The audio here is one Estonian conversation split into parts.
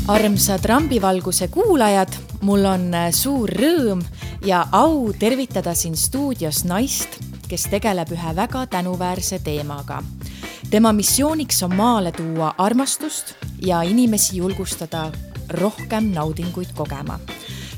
Armsad Rambivalguse kuulajad, mul on suur rõõm ja au tervitada siin stuudios naist, kes tegeleb ühe väga tänuväärse teemaga. Tema missiooniks on maale tuua armastust ja inimesi julgustada rohkem naudinguid kogema.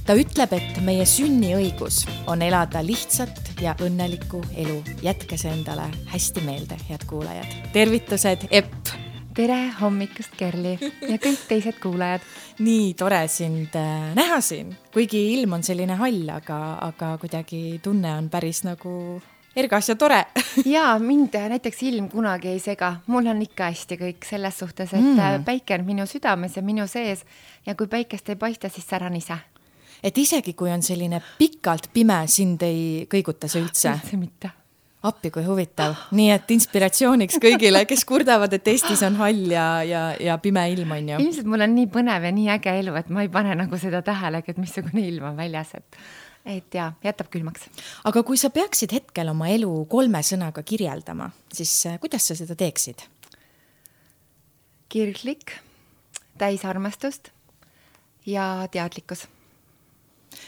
Ta ütleb, et meie sünniõigus on elada lihtsat ja õnnelikku elu. Jätke see endale hästi meelde, head kuulajad. Tervitused, Epp! Tere hommikust, Kerli ja kõik teised kuulajad. Nii tore sind näha siin, kuigi ilm on selline hall, aga kuidagi tunne on päris nagu ergas ja tore. Ja mind näiteks ilm kunagi ei sega. Mul on ikka hästi kõik selles suhtes, et päike on minu südames ja minu sees ja kui päikest ei paista, siis säran ise. Et isegi kui on selline pikalt pime, sind ei kõiguta see üldse? Üldse mitte. Appi, kui huvitav. Nii et inspiratsiooniks kõigile, kes kurdavad, et Eestis on hall ja pime ilm on ju. Ilmselt mul on nii põnev ja nii äge elu, et ma ei pane nagu seda tähelegi, et missugune ilm on väljas. Et ja, jätab külmaks. Aga kui sa peaksid hetkel oma elu 3 sõnaga kirjeldama, siis kuidas sa seda teeksid? Kirglik, täis armastust ja teadlikkus.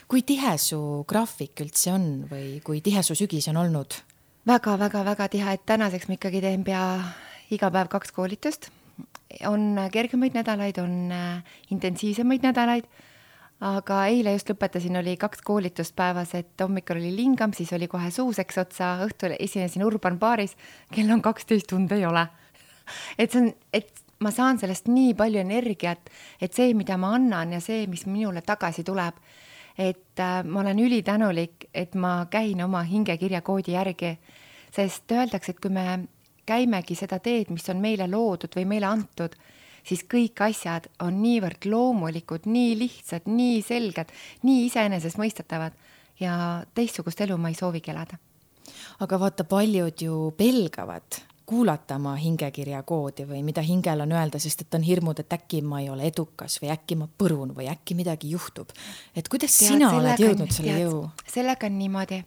Kui tihe su graafik üldse on või kui tihe su sügis on olnud? Väga tihe, et tänaseks ma ikkagi teen pea iga päev 2 koolitust. On kergemaid nädalaid, on intensiivsemaid nädalaid, aga eile just lõpetasin, oli 2 koolitust päevas, et hommikul oli lingam, siis oli kohe suuseks otsa, õhtul esinesin Urban baaris, kell on 12 tund ei ole. Et ma saan sellest nii palju energiat, et see, mida ma annan ja see, mis minule tagasi tuleb, et ma olen ülitänulik, et ma käin oma hingekirja koodi järgi, sest öeldakse, et kui me käimegi seda teed, mis on meile loodud või meile antud, siis kõik asjad on niivõrd loomulikud, nii lihtsad, nii selged, nii iseenesest mõistetavad ja teistsugust elu ma ei soovigi elada. Aga vaata, paljud ju pelgavad kuulata oma hingekirja koodi või mida hingel on öelda, sest et on hirmud, et äkki ma ei ole edukas või äkki ma põrun või äkki midagi juhtub. Et kuidas sina oled jõudnud selle jõu? Sellega on niimoodi,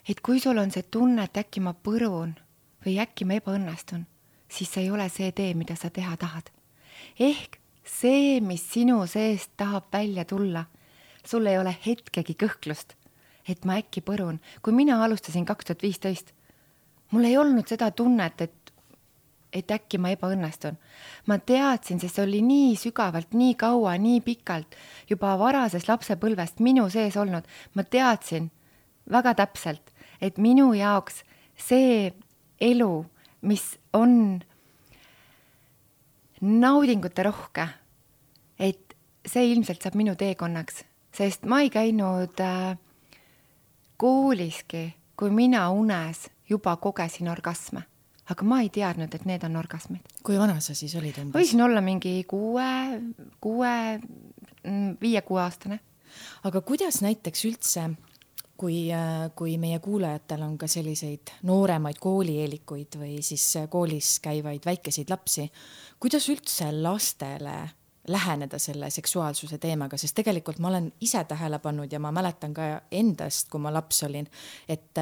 et kui sul on see tunne, et äkki ma põrun või äkki ma ebaõnnestun, siis see ei ole see tee, mida sa teha tahad. Ehk see, mis sinu seest tahab välja tulla, sul ei ole hetkegi kõhklust, et ma äkki põrun. Kui mina alustasin 2015, mul ei olnud seda tunnet, et äkki ma ebaõnnestun. Ma teadsin, sest see oli nii sügavalt, nii kaua, nii pikalt, juba varases lapsepõlvest minu sees olnud. Ma teadsin väga täpselt, et minu jaoks see elu, mis on naudingute rohke, et see ilmselt saab minu teekonnaks, sest ma ei käinud kooliski, kui mina unes juba kogesin orgasme, aga ma ei teadnud, et need on orgasmid. Kui vana sa siis olid umbes? Võisin olla mingi 5-6 aastane. Aga kuidas näiteks üldse, kui meie kuulajatel on ka selliseid nooremaid koolieelikuid või siis koolis käivaid väikeseid lapsi, kuidas üldse lastele läheneda selle seksuaalsuse teemaga, sest tegelikult ma olen ise tähele pannud ja ma mäletan ka endast, kui ma laps olin, et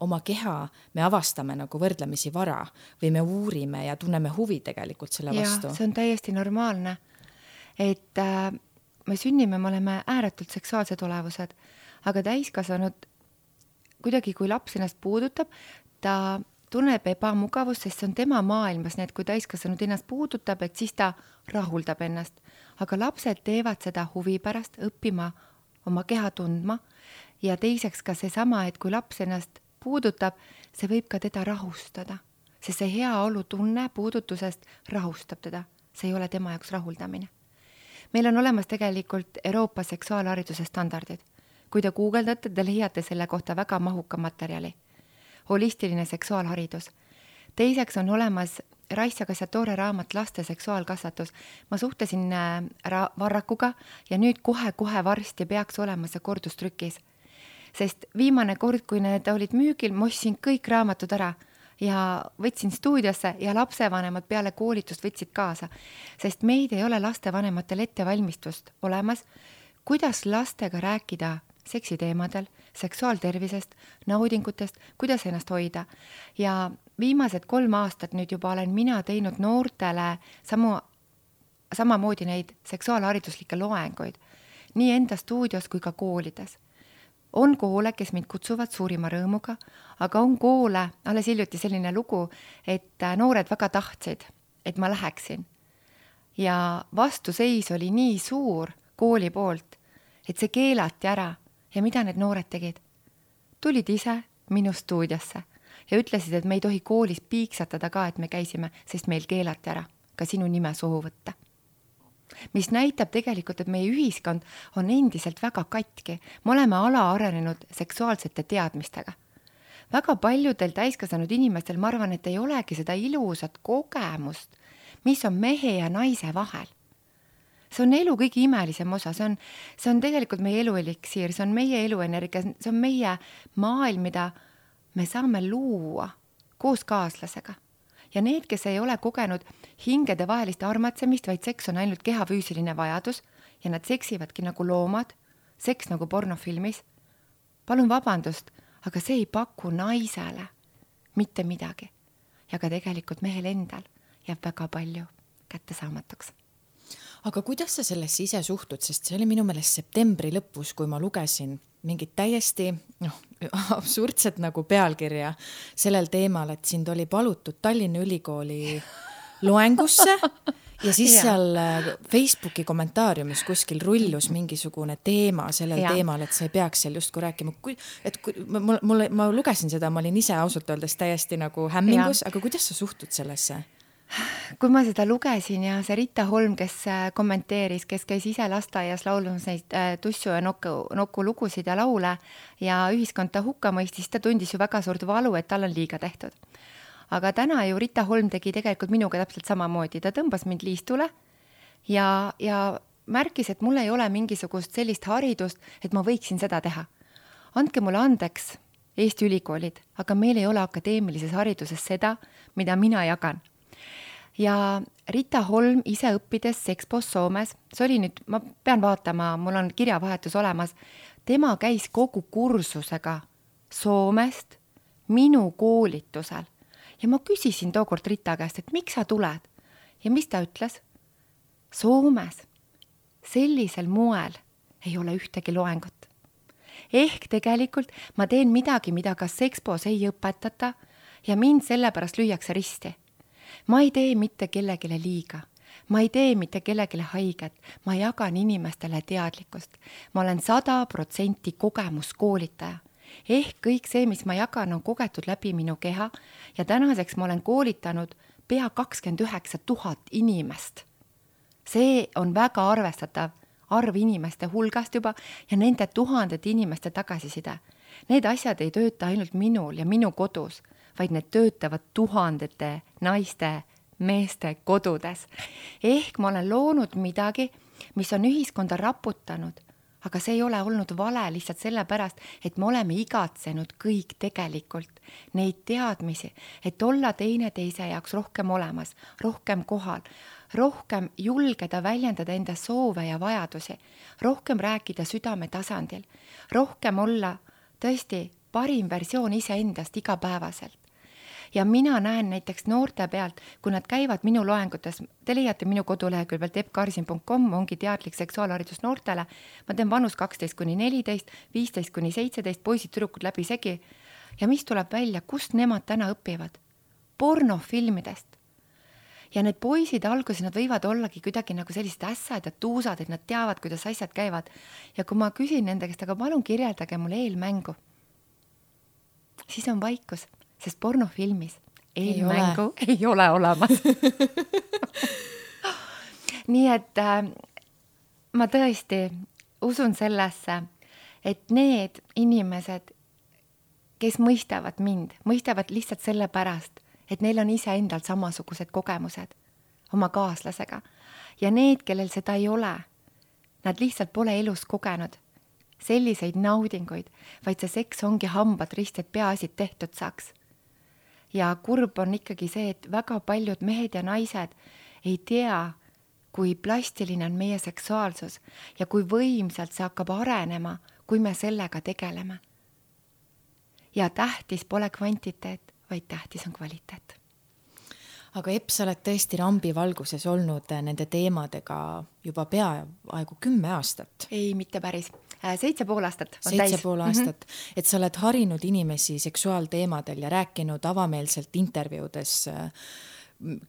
oma keha me avastame nagu võrdlemisi vara või me uurime ja tunneme huvi tegelikult selle vastu. Ja, see on täiesti normaalne, et me sünnime, me oleme ääretult seksuaalsed olevused, aga täiskasvanud kuidagi, kui laps ennast puudutab, ta tunneb ebamugavust, sest see on tema maailmas, need kui täiskasvanud ennast puudutab, et siis ta rahuldab ennast. Aga lapsed teevad seda huvi pärast, õppima oma keha tundma ja teiseks ka seesama, et kui laps ennast puudutab, see võib ka teda rahustada, sest see hea olu tunne puudutusest rahustab teda. See ei ole tema jaoks rahuldamine. Meil on olemas tegelikult Euroopa seksuaalhariduse standardid. Kui te guugeldate, te leiate selle kohta väga mahuka materjali. Holistiline seksuaalharidus. Teiseks on olemas Raissa Kassatore raamat Laste seksuaalkasvatus. Ma suhtlesin Varrakuga ja nüüd kohe varsti peaks olema see kordustrükis. Sest viimane kord, kui need olid müügil, ma ostsin kõik raamatud ära ja võtsin stuudiosse ja lapsevanemad peale koolitust võtsid kaasa. Sest meid ei ole lastevanematel ettevalmistust olemas, kuidas lastega rääkida seksiteemadel, seksuaaltervisest, naudingutest, kuidas ennast hoida. Ja viimased 3 aastat nüüd juba olen mina teinud noortele samu samamoodi neid seksuaalhariduslikke loenguid nii enda stuudios kui ka koolides. On koole, kes mind kutsuvad suurima rõõmuga, aga on koole, alles hiljuti selline lugu, et noored väga tahtsid, et ma läheksin. Ja vastuseis oli nii suur kooli poolt, et see keelati ära. Ja mida need noored tegid? Tulid ise minu stuudiosse ja ütlesid, et me ei tohi koolis piiksatada ka, et me käisime, sest meil keelati ära ka sinu nime suhu võtta. Mis näitab tegelikult, et meie ühiskond on endiselt väga katki. Me oleme alaarenenud seksuaalsete teadmistega. Väga paljudel täiskasvanud inimestel, ma arvan, et ei olegi seda ilusat kogemust, mis on mehe ja naise vahel. See on elu kõige imelisem osa, see on tegelikult meie elueliksiir, see on meie eluenergia, see on meie maailm, mida me saame luua koos kaaslasega. Ja need, kes ei ole kogenud hingede vahelist armatsemist, vaid seks on ainult kehafüüsiline vajadus ja nad seksivadki nagu loomad, seks nagu pornofilmis. Palun vabandust, aga see ei paku naisele mitte midagi. Ja ka tegelikult mehel endal jääb väga palju kättesaamatuks. Aga kuidas sa sellesse ise suhtud, sest see oli minu meelest septembri lõpus, kui ma lugesin mingit täiesti absurdset nagu pealkirja sellel teemal, et sind oli palutud Tallinna Ülikooli loengusse ja siis seal Facebooki kommentaariumis kuskil rullus mingisugune teema sellel teemal, et sa ei peaks seal justkui rääkima. Ma lugesin seda, ma olin ise ausalt öeldes täiesti nagu hämmingus, aga kuidas sa suhtud sellesse? Kui ma seda lugesin ja see Rita Holm, kes kommenteeris, kes käis ise lasteaias laulmas neid tussu ja nokku lugusid ja laule ja ühiskond ta hukka mõistis, ta tundis ju väga suurt valu, et tal on liiga tehtud. Aga täna ju Rita Holm tegi tegelikult minuga täpselt samamoodi. Ta tõmbas mind liistule ja märkis, et mul ei ole mingisugust sellist haridust, et ma võiksin seda teha. Andke mulle andeks Eesti ülikoolid, aga meil ei ole akadeemilises hariduses seda, mida mina jagan. Ja Rita Holm ise õppides Sexpos Soomes, see oli nüüd, ma pean vaatama, mul on kirjavahetus olemas, tema käis kogu kursusega Soomest minu koolitusel. Ja ma küsisin tookord Rita käest, et miks sa tuled? Ja mis ta ütles? Soomes sellisel moel ei ole ühtegi loengut. Ehk tegelikult ma teen midagi, mida ka Sexpos ei õpetata ja mind sellepärast lüüakse risti. Ma ei tee mitte kellegile liiga. Ma ei tee mitte kellegile haiget. Ma jagan inimestele teadlikkust. Ma olen 100% kogemuskoolitaja. Ehk kõik see, mis ma jagan, on kogetud läbi minu keha ja tänaseks ma olen koolitanud pea 29 000 inimest. See on väga arvestatav arv inimeste hulgast juba ja nende tuhandete inimeste tagasiside. Need asjad ei tööta ainult minul ja minu kodus, vaid need töötavad tuhandete naiste, meeste kodudes. Ehk ma olen loonud midagi, mis on ühiskonda raputanud, aga see ei ole olnud vale lihtsalt sellepärast, et me oleme igatsenud kõik tegelikult neid teadmisi, et olla teineteise jaoks rohkem olemas, rohkem kohal, rohkem julgeda väljendada enda soove ja vajadusi, rohkem rääkida südame tasandil, rohkem olla tõesti parim versioon iseendast igapäevaselt. Ja mina näen näiteks noorte pealt, kui nad käivad minu loengutes, te leiate minu kodulehekülg pealt eppkarsin.com, ongi teadlik seksuaalharidus noortele, ma teen vanus 12-14, 15-17, poisid, tüdrukud läbi segi. Ja mis tuleb välja, kust nemad täna õpivad? Pornofilmidest. Ja need poisid alguses, nad võivad ollagi kuidagi nagu sellised ässad ja tuusad, et nad teavad, kuidas asjad käivad. Ja kui ma küsin nende käest, aga palun kirjeldage mulle eelmängu, siis on vaikus. Sest pornofilmis eelmängu ei ole olemas. Nii et ma tõesti usun sellesse, et need inimesed, kes mõistavad mind, mõistavad lihtsalt selle pärast, et neil on ise endal samasugused kogemused oma kaaslasega. Ja need, kellel seda ei ole, nad lihtsalt pole elus kogenud selliseid naudinguid, vaid see seks ongi hambad rist, et peaasid tehtud saaks. Ja kurb on ikkagi see, et väga paljud mehed ja naised ei tea, kui plastiline on meie seksuaalsus ja kui võimsalt see hakkab arenema, kui me sellega tegeleme. Ja tähtis pole kvantiteet, vaid tähtis on kvaliteet. aga Epp, sa oled tõesti rambivalguses olnud nende teemadega juba peaaegu 10 aastat. Ei, mitte päris. 7,5 aastat on 7,5 aastat. Et sa oled harinud inimesi seksuaalteemadel ja rääkinud avameelselt intervjuudes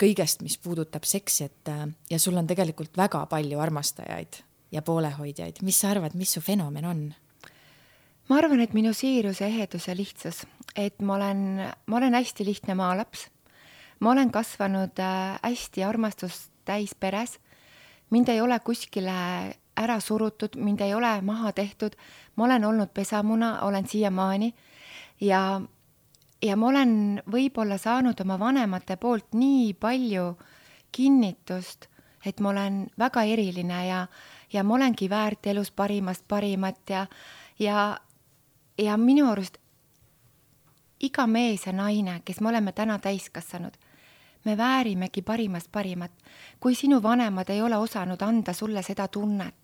kõigest, mis puudutab seksi, ja sul on tegelikult väga palju armastajaid ja poolehoidjaid. Mis sa arvad, mis su fenomen on? Ma arvan, et minu siirus, ehedus ja lihtsus, et ma olen hästi lihtne maalaps. Ma olen kasvanud hästi armastust täis peres. Mind ei ole kuskile ära surutud, mind ei ole maha tehtud. Ma olen olnud pesamuna, olen siiamaani ja ma olen võib-olla saanud oma vanemate poolt nii palju kinnitust, et ma olen väga eriline ja ma olengi väärt elus parimast parimat ja minu arust iga mees ja naine, kes me oleme täna täiskasvanud, me väärimegi parimast parimat, kui sinu vanemad ei ole osanud anda sulle seda tunnet.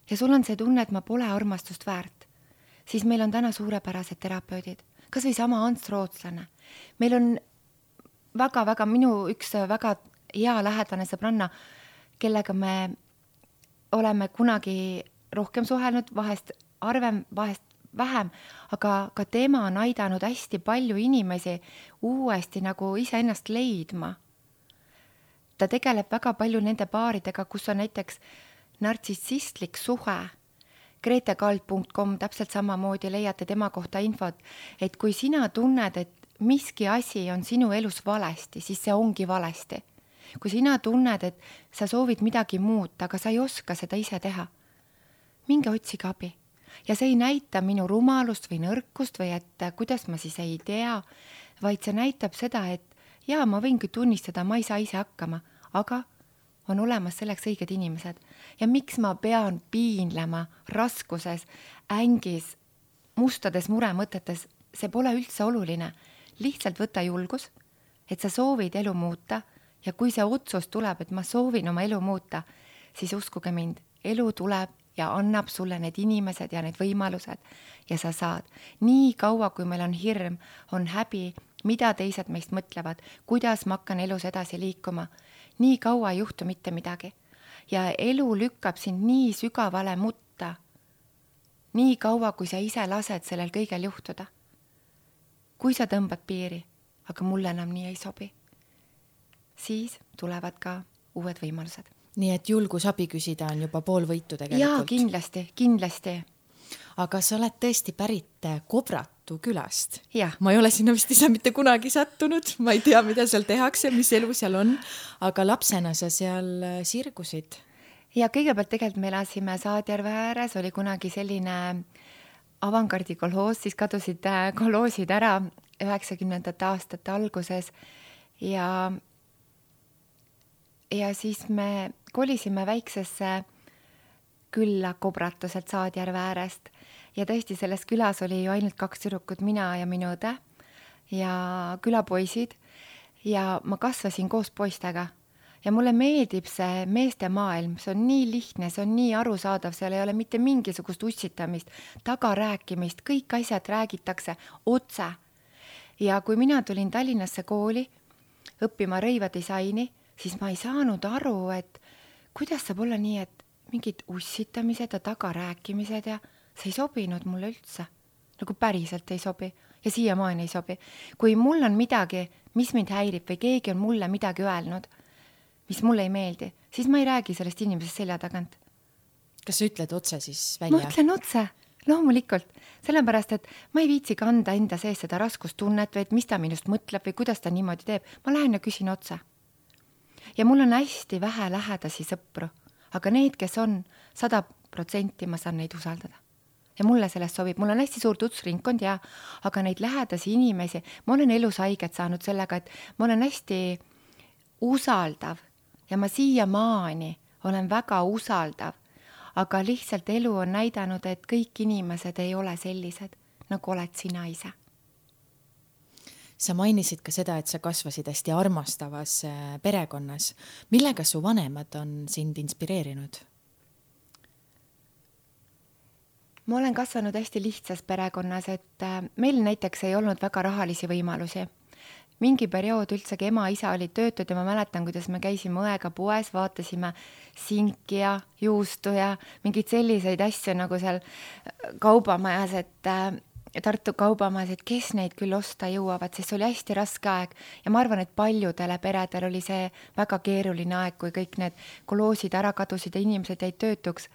Ja sul on see tunne, et ma pole armastust väärt, siis meil on täna suurepärased terapeudid, kas või sama Ants Rootslane. Meil on väga-väga minu üks väga hea lähedane sõbranna, kellega me oleme kunagi rohkem suhelnud, vahest arvem, vahest vähem, aga ka tema on aidanud hästi palju inimesi uuesti nagu iseennast leidma. Ta tegeleb väga palju nende paaridega, kus on näiteks nartsissistlik suhe. gretekald.com täpselt samamoodi leiate tema kohta infot, et kui sina tunned, et miski asi on sinu elus valesti, siis see ongi valesti. Kui sina tunned, et sa soovid midagi muuta, aga sa ei oska seda ise teha, minge otsige abi. Ja see ei näita minu rumalust või nõrkust või et kuidas ma siis ei tea, vaid see näitab seda, et jaa, ma võingi tunnistada, ma ei saa ise hakkama, aga on olemas selleks õiged inimesed. Ja miks ma pean piinlema raskuses, ängis, mustades muremõtetes, see pole üldse oluline. Lihtsalt võta julgus, et sa soovid elu muuta ja kui see otsus tuleb, et ma soovin oma elu muuta, siis uskuge mind, elu tuleb ja annab sulle need inimesed ja need võimalused ja sa saad. Nii kaua, kui meil on hirm, on häbi, mida teised meist mõtlevad, kuidas ma hakkan elus edasi liikuma, nii kaua ei juhtu mitte midagi. Ja elu lükkab sind nii sügavale mutta, nii kaua, kui sa ise lased sellel kõigel juhtuda. Kui sa tõmbad piiri, aga mulle enam nii ei sobi, siis tulevad ka uued võimalused. Nii et julgus abi küsida on juba pool võitu tegelikult. Jaa, kindlasti. Aga sa oled tõesti pärit Kobratu külast. Ja. Ma ei ole sinna vist ise mitte kunagi sattunud. Ma ei tea, mida seal tehakse, mis elu seal on. Aga lapsena sa seal sirgusid. Ja kõigepealt tegelikult me elasime Saadjärve ääres, oli kunagi selline avangardi kolhoos, siis kadusid kolhoosid ära 90. aastate alguses ja siis me kolisime väiksesse külla Kobratu sealt Saadjärve äärest ja tõesti selles külas oli ju ainult 2 tüdrukut, mina ja minu õde ja külapoisid ja ma kasvasin koos poistega ja mulle meeldib see meeste maailm, see on nii lihtne, see on nii arusaadav, seal ei ole mitte mingisugust ussitamist, tagarääkimist, kõik asjad räägitakse otse. Ja kui mina tulin Tallinnasse kooli õppima rõivadisaini, siis ma ei saanud aru, et kuidas saab olla nii, et mingid ussitamised ja tagarääkimised ja see ei sobinud mulle üldse. Nagu päriselt ei sobi ja siiamaani ei sobi. Kui mul on midagi, mis mind häirib või keegi on mulle midagi öelnud, mis mulle ei meeldi, siis ma ei räägi sellest inimesest selja tagant. Kas sa ütled otse siis välja? Ma ütlen otse, loomulikult. Sellepärast, et ma ei viitsi kanda enda sees seda raskustunnet või et mis ta minust mõtleb või kuidas ta niimoodi teeb. Ma lähen ja küsin otse. Ja mul on hästi vähe lähedasi sõpru, aga need, kes on 100%, ma saan neid usaldada. Ja mulle sellest sobib. Mul on hästi suur tutvusringkond ja aga neid lähedasi inimesi, ma olen elus haiget saanud sellega, et ma olen hästi usaldav ja ma siiamaani olen väga usaldav, aga lihtsalt elu on näidanud, et kõik inimesed ei ole sellised, nagu oled sina ise. Sa mainisid ka seda, et sa kasvasid hästi armastavas perekonnas. Millega su vanemad on sind inspireerinud? Ma olen kasvanud hästi lihtsas perekonnas, et meil näiteks ei olnud väga rahalisi võimalusi. mingi periood üldsegi ema-isa olid töötud ja ma mäletan, kuidas me käisime õega poes, vaatasime sinki ja juustu ja mingeid selliseid asju nagu seal kaubamajas, Tartu kaubamajas, et kes neid küll osta jõuavad, sest see oli hästi raske aeg ja ma arvan, et paljudele peredel oli see väga keeruline aeg, kui kõik need koloosid ära kadusid ja inimesed jäid töötuks.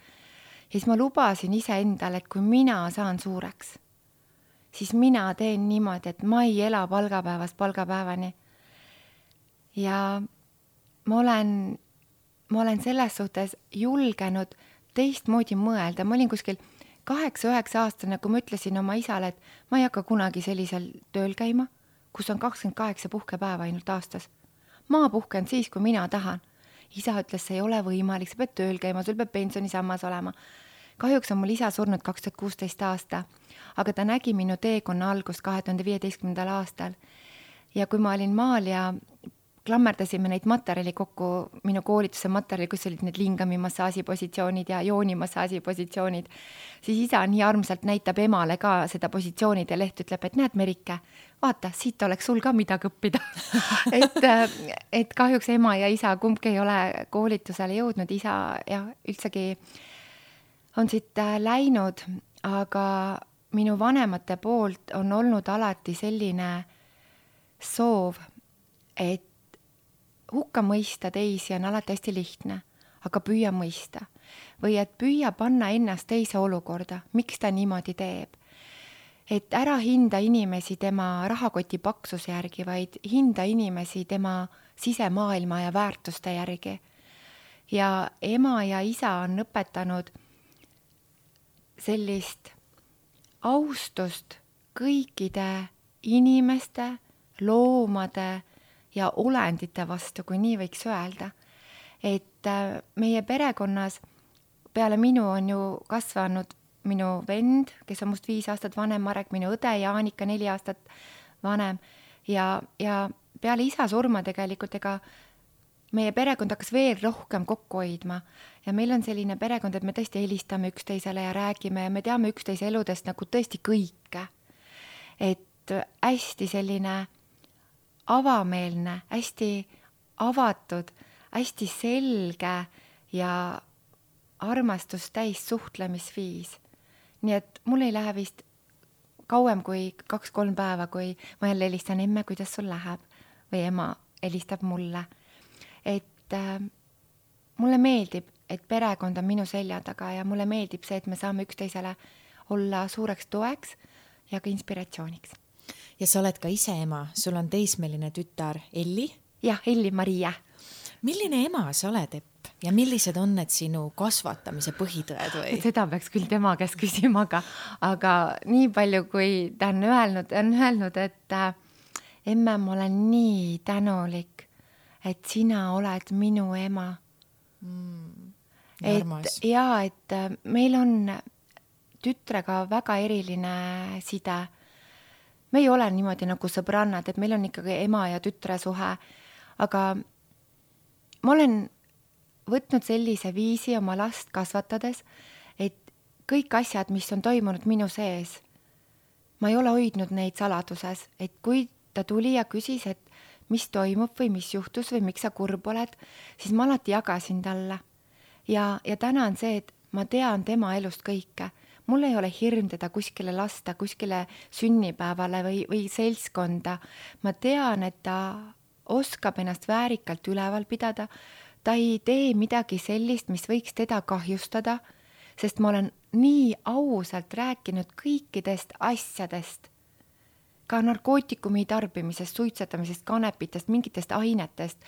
Ja siis ma lubasin iseendale, et kui mina saan suureks, siis mina teen niimoodi, et ma ei ela palgapäevast palgapäevani. Ja ma olen selles suhtes julgenud teistmoodi mõelda. Ma olin kuskil 8-9 aastane, kui ma ütlesin oma isale, et ma ei hakka kunagi sellisel tööl käima, kus on 28 puhkepäeva ainult aastas. Ma puhken siis, kui mina tahan. Isa ütles, see ei ole võimalik, sa pead tööl käima, sul peab pensionisammas olema. Kahjuks on mul isa surnud 2016 aasta, aga ta nägi minu teekonna algust 2015. aastal. Ja kui ma olin maal ja klammerdasime neid materjali kokku, minu koolituse materjali, kus olid need lingami massaažipositsioonid ja joonimassaaži positsioonid, siis isa nii armsalt näitab emale ka seda positsioonid ja leht ütleb, et näed, Merike, vaata, siit oleks sul ka midagi õppida. et kahjuks ema ja isa kumbki ei ole koolitusele jõudnud, isa ja üldsegi on siit läinud, aga minu vanemate poolt on olnud alati selline soov, et hukka mõista teisi on alati hästi lihtne, aga püüa mõista. Või et püüa panna ennast teise olukorda, miks ta niimoodi teeb. Et ära hinda inimesi tema rahakoti paksuse järgi, vaid hinda inimesi tema sisemaailma ja väärtuste järgi. Ja ema ja isa on õpetanud sellist austust kõikide inimeste, loomade ja olendite vastu, kui nii võiks öelda. Et meie perekonnas peale minu on ju kasvanud minu vend, kes on must 5 aastat vanem, Marek, minu õde Jaanika 4 aastat vanem ja peale isa surma tegelikult meie perekond hakkas veel rohkem kokku hoidma ja meil on selline perekond, et me tõesti helistame üksteisele ja räägime ja me teame üksteise eludest nagu tõesti kõike. Et hästi selline avameelne, hästi avatud, hästi selge ja armastust täis suhtlemisviis. Nii et mul ei lähe vist kauem kui 2-3 päeva, kui ma jälle helistan, emme, kuidas sul läheb? Või ema helistab mulle. Et mulle meeldib, et perekond on minu selja taga ja mulle meeldib see, et me saame üksteisele olla suureks toeks ja ka inspiratsiooniks. Ja sa oled ka ise ema, sul on teismeline tütar Elli? Jah, Elli-Maria. Milline ema sa oled, Epp? Ja millised on need sinu kasvatamise põhitõed või? Seda peaks küll tema käest küsima, aga nii palju, kui ta on öelnud, et emme, ma olen nii tänulik, et sina oled minu ema. Et meil on tütrega väga eriline side. Me ei ole niimoodi nagu sõbrannad, et meil on ikkagi ema ja tütre suhe, aga ma olen võtnud sellise viisi oma last kasvatades, et kõik asjad, mis on toimunud minu sees, ma ei ole hoidnud neid saladuses, et kui ta tuli ja küsis, et mis toimub või mis juhtus või miks sa kurb oled, siis ma alati jagasin talle. Ja täna on see, et ma tean tema elust kõike. Mul ei ole hirm teda kuskile lasta, kuskile sünnipäevale või seltskonda. Ma tean, et ta oskab ennast väärikalt üleval pidada. Ta ei tee midagi sellist, mis võiks teda kahjustada, sest ma olen nii ausalt rääkinud kõikidest asjadest. Ka narkootikumi tarbimisest, suitsetamisest, kanepitest, mingitest ainetest,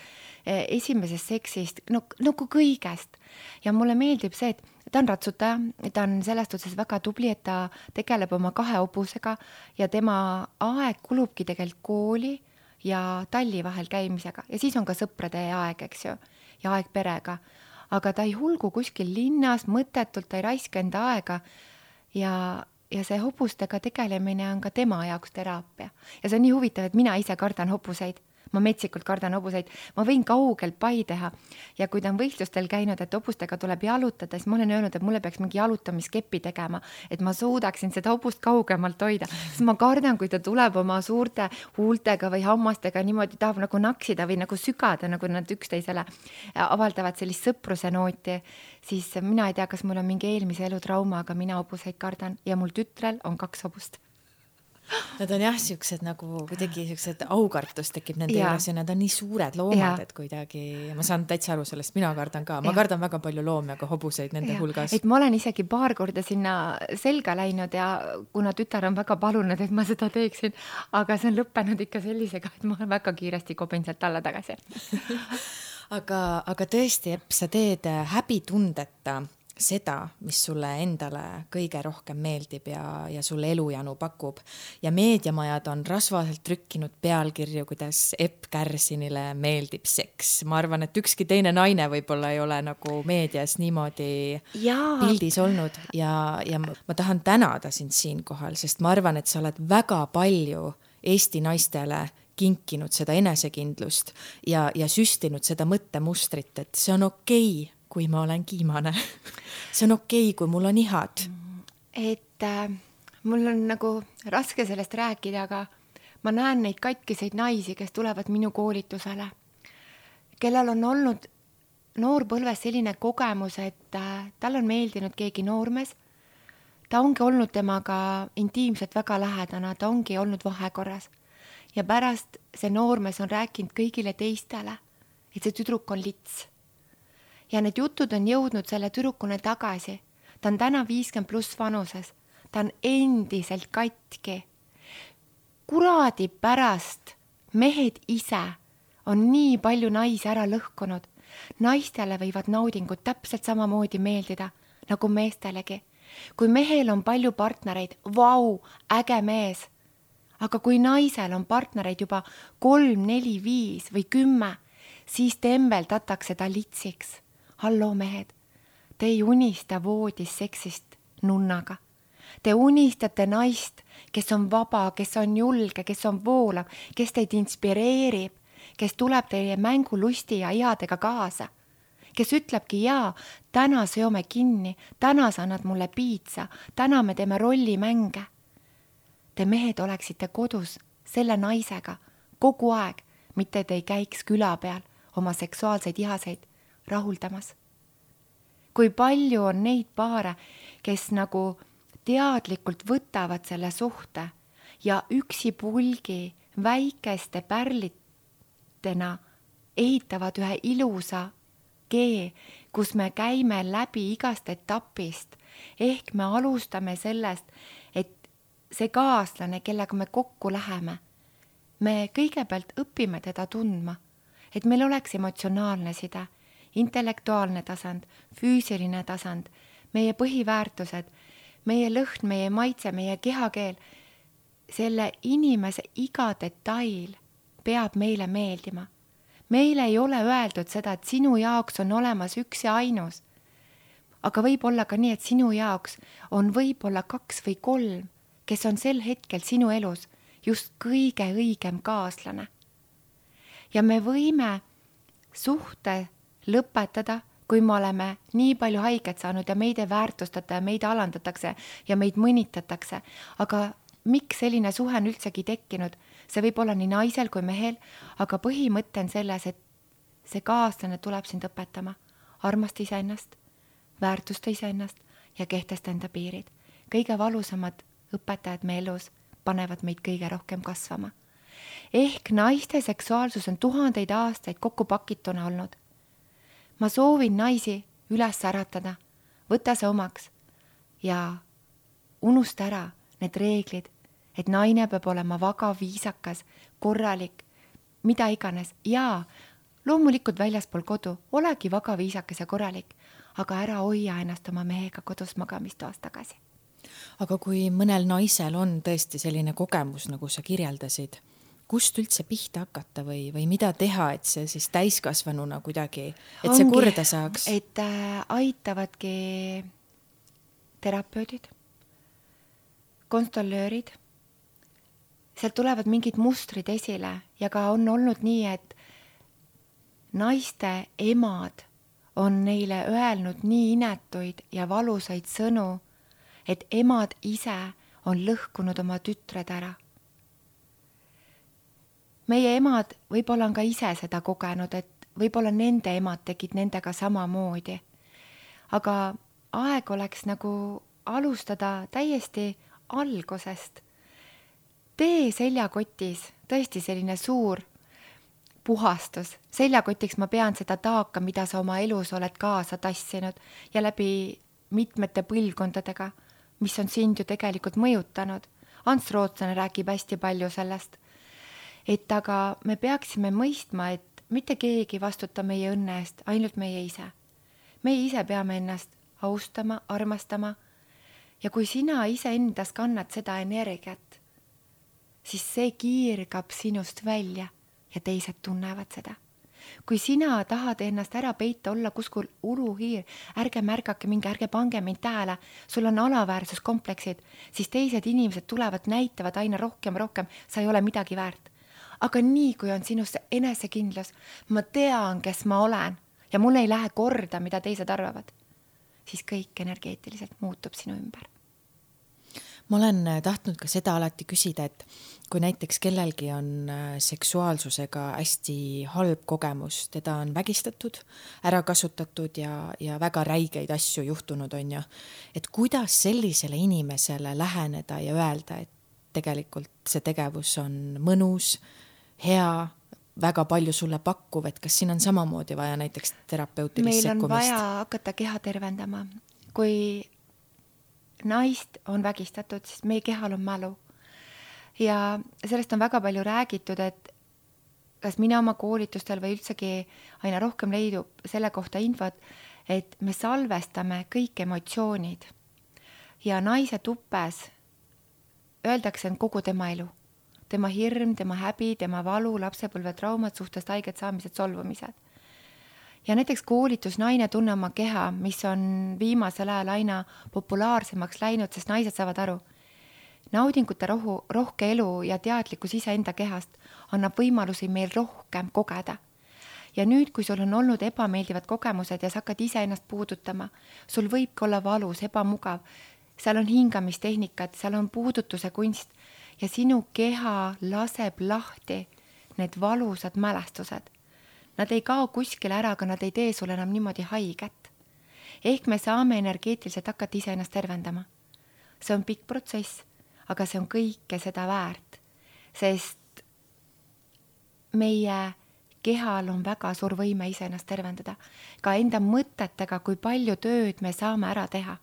esimesest seksist, nagu kõigest. Ja mulle meeldib see, et ta on ratsutaja, ta on sellest otsas väga tubli, et ta tegeleb oma 2 hobusega ja tema aeg kulubki tegelikult kooli ja talli vahel käimisega. Ja siis on ka sõprade aeg, eks ju, ja aeg perega. Aga ta ei hulgu kuskil linnas, mõttetult ta ei raiska enda aega ja see hobustega tegelemine on ka tema jaoks teraapia. Ja see on nii huvitav, et mina ise kardan hobuseid. ma metsikult kardan hobuseid, ma võin kaugelt pai teha ja kui ta on võistlustel käinud, et hobustega tuleb jalutada, siis ma olen öelnud, et mulle peaks mingi jalutamiskepi tegema, et ma suudaksin seda hobust kaugemalt hoida, sest ma kardan, kui ta tuleb oma suurte huultega või hammastega niimoodi tahab nagu naksida või nagu sügada, nagu nad üksteisele avaldavad sellist sõpruse nooti, siis mina ei tea, kas mul on mingi eelmise elu trauma, aga mina hobuseid kardan ja mul tütrel on 2 hobust. Nad on jah, siuksed nagu kuidagi siuksed aukartus tekib nende juures ja nad on nii suured loomad, et kuidagi, ma saan täitsa aru sellest, mina kardan ka, ma kardan väga palju loomi, aga hobuseid nende hulgas. Et ma olen isegi paar korda sinna selga läinud ja kuna tütar on väga palunud, et ma seda teeksin, aga see on lõppenud ikka sellisega, et ma väga kiiresti kobin sealt alla tagasi. aga tõesti, Epp, sa teed häbitundeta seda, mis sulle endale kõige rohkem meeldib ja sulle elujanu pakub. Ja meediamajad on rasvaselt trükkinud pealkirju, kuidas Epp Kärsinile meeldib seks. Ma arvan, et ükski teine naine võib-olla ei ole nagu meedias niimoodi pildis olnud ja ma tahan tänada sind siinkohal, sest ma arvan, et sa oled väga palju Eesti naistele kinkinud seda enesekindlust ja süstinud seda mõttemustrit, et see on okei, kui ma olen kiimane. See on okei, kui mul on ihad. Et mul on nagu raske sellest rääkida, aga ma näen neid katkiseid naisi, kes tulevad minu koolitusele, kellel on olnud noorpõlves selline kogemus, et tal on meeldinud keegi noormees, ta ongi olnud temaga intiimselt väga lähedane, ta ongi olnud vahekorras ja pärast see noormees on rääkinud kõigile teistele, et see tüdruk on lits. Ja need jutud on jõudnud selle tüdrukune tagasi. Ta on täna 50+ vanuses. Ta on endiselt katki. Kuradi pärast mehed ise on nii palju naisi ära lõhkunud. Naistele võivad naudingud täpselt samamoodi meeldida, nagu meestelegi. Kui mehel on palju partnereid, vau, äge mees. Aga kui naisel on partnereid juba 3, 4, 5 või 10, siis tembeldatakse ta litsiks. Hallo mehed, te ei unista voodis seksist nunnaga. Te unistate naist, kes on vaba, kes on julge, kes on voolav, kes teid inspireerib, kes tuleb teie mängulusti ja ihadega kaasa, kes ütlebki jaa, täna seome kinni, täna sa annad mulle piitsa, täna me teeme rollimänge. Te mehed oleksite kodus selle naisega kogu aeg, mitte te ei käiks küla peal oma seksuaalseid ihaseid rahuldamas. Kui palju on neid paare, kes nagu teadlikult võtavad selle suhte ja üksipulgi väikeste pärlitena ehitavad ühe ilusa kee, kus me käime läbi igast etapist. Ehk me alustame sellest, et see kaaslane, kellega me kokku läheme, me kõigepealt õpime teda tundma, et meil oleks emotsionaalne side, intellektuaalne tasand, füüsiline tasand, meie põhiväärtused, meie lõhn, meie maitse, meie kehakeel. Selle inimese iga detail peab meile meeldima. Meile ei ole öeldud seda, et sinu jaoks on olemas üks ja ainus. Aga võib olla ka nii, et sinu jaoks on võib-olla 2 või 3, kes on sel hetkel sinu elus just kõige õigem kaaslane. Ja me võime suhte lõpetada, kui me oleme nii palju haiget saanud ja meid ei väärtustata ja meid alandatakse ja meid mõnitatakse. Aga miks selline suhe on üldsegi tekkinud? See võib olla nii naisel kui mehel, aga põhimõte on selles, et see kaaslane tuleb sind õpetama. Armasta iseennast, väärtusta iseennast ja kehtesta enda piirid. Kõige valusamad õpetajad me elus panevad meid kõige rohkem kasvama. Ehk naiste seksuaalsus on 1000 aastaid kokku pakituna olnud. Ma soovin naisi üles äratada, võta see omaks ja unusta ära need reeglid, et naine peab olema vaga, viisakas, korralik, mida iganes. Ja loomulikult väljaspool kodu, olegi vaga, viisakas ja korralik, aga ära hoia ennast oma mehega kodus magamistoas tagasi. Aga kui mõnel naisel on tõesti selline kogemus, nagu sa kirjeldasid, kust üldse pihta hakata või mida teha, et see siis täiskasvanuna kuidagi, et see korda saaks? Et aitavadki terapeudid, konstolöörid, sealt tulevad mingid mustrid esile ja ka on olnud nii, et naiste emad on neile öelnud nii inetuid ja valusaid sõnu, et emad ise on lõhkunud oma tütred ära. Meie emad võib-olla on ka ise seda kogenud, et võib-olla nende emad tegid nendega samamoodi. Aga aeg oleks nagu alustada täiesti algusest. Tee seljakotis tõesti selline suur puhastus. Seljakotiks ma pean seda taaka, mida sa oma elus oled kaasa tassinud ja läbi mitmete põlvkondadega, mis on sind ju tegelikult mõjutanud. Ants Rootslane räägib hästi palju sellest. Et aga me peaksime mõistma, et mitte keegi vastuta meie õnne eest, ainult meie ise. Meie ise peame ennast austama, armastama ja kui sina ise endas kannad seda energiat, siis see kiirgab sinust välja ja teised tunnevad seda. Kui sina tahad ennast ära peita, olla kuskil uluhiir, ärge märgake mingi, ärge pange mind tähele, sul on alaväärsuskompleksid, siis teised inimesed tulevad, näitavad aina rohkem, sa ei ole midagi väärt. Aga nii, kui on sinust enesekindlus, ma tean, kes ma olen ja mul ei lähe korda, mida teised arvavad, siis kõik energeetiliselt muutub sinu ümber. Ma olen tahtnud ka seda alati küsida, et kui näiteks kellelgi on seksuaalsusega hästi halb kogemus, teda on vägistatud, ära kasutatud ja väga räigeid asju juhtunud on ju, et kuidas sellisele inimesele läheneda ja öelda, et tegelikult see tegevus on mõnus, hea, väga palju sulle pakkuv, et kas siin on samamoodi vaja näiteks terapeutilist sekkumist? Meil on vaja hakata keha tervendama. Kui naist on vägistatud, siis meie kehal on mälu. Ja sellest on väga palju räägitud, et kas mina oma koolitustel või üldsegi aina rohkem leidub selle kohta infot, et me salvestame kõik emotsioonid ja naise tupes öeldakse on kogu tema elu. Tema hirm, tema häbi, tema valu, lapsepõlve traumad, suhtest haiged saamised, solvumised. Ja näiteks koolitus naine tunne oma keha, mis on viimasel ajal aina populaarsemaks läinud, sest naised saavad aru. Naudingute rohke elu ja teadlikkus ise enda kehast annab võimalusi meil rohkem kogeda. Ja nüüd, kui sul on olnud ebameeldivad kogemused ja sa hakkad ise ennast puudutama, sul võibki olla valus, ebamugav, seal on hingamistehnikad, seal on puudutuse kunst ja sinu keha laseb lahti need valusad mälestused. Nad ei kao kuskile ära, aga nad ei tee sulle enam niimoodi haiget. Ehk me saame energeetiliselt hakata ise ennast tervendama. See on pikk protsess, aga see on kõike seda väärt, sest meie kehal on väga suur võime ise ennast tervendada. Ka enda mõtetega, kui palju tööd me saame ära teha.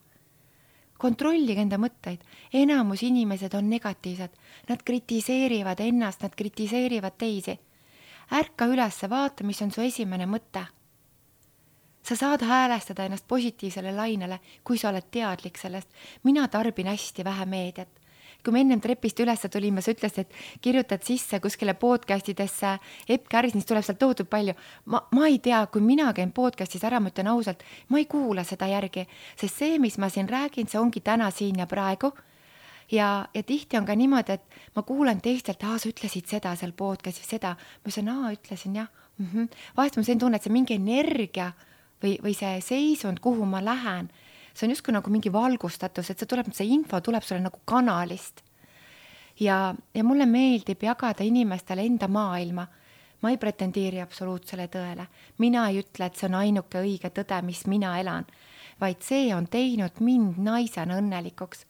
Kontrollige enda mõtteid. Enamus inimesed on negatiivsed. Nad kritiseerivad ennast, nad kritiseerivad teisi. Ärka üles, vaata, mis on su esimene mõte. Sa saad häälestada ennast positiivsele lainele, kui sa oled teadlik sellest. Mina tarbin hästi vähe meediat. Kui me ennem trepist üles tulime, sa ütlesid, et kirjutad sisse kuskile podcastidesse Epp Kärsnist tuleb sealt toodud palju. Ma ei tea, kui mina käin podcastis ära, ma ütlen ausalt, ma ei kuula seda järgi, sest see, mis ma siin räägin, see ongi täna siin ja praegu. Ja tihti on ka niimoodi, et ma kuulen teistelt, sa ütlesid seda seal podcastis, seda. Ma ütlesin, ütlesin jah. Vahest ma sain tunne, et see mingi energia või see seisund, kuhu ma lähen, see on justkui nagu mingi valgustatus, et see info tuleb sulle nagu kanalist. Ja mulle meeldib jagada inimestele enda maailma. Ma ei pretendeeri absoluutsele tõele. Mina ei ütle, et see on ainuke õige tõde, mis mina elan, vaid see on teinud mind naisena õnnelikuks.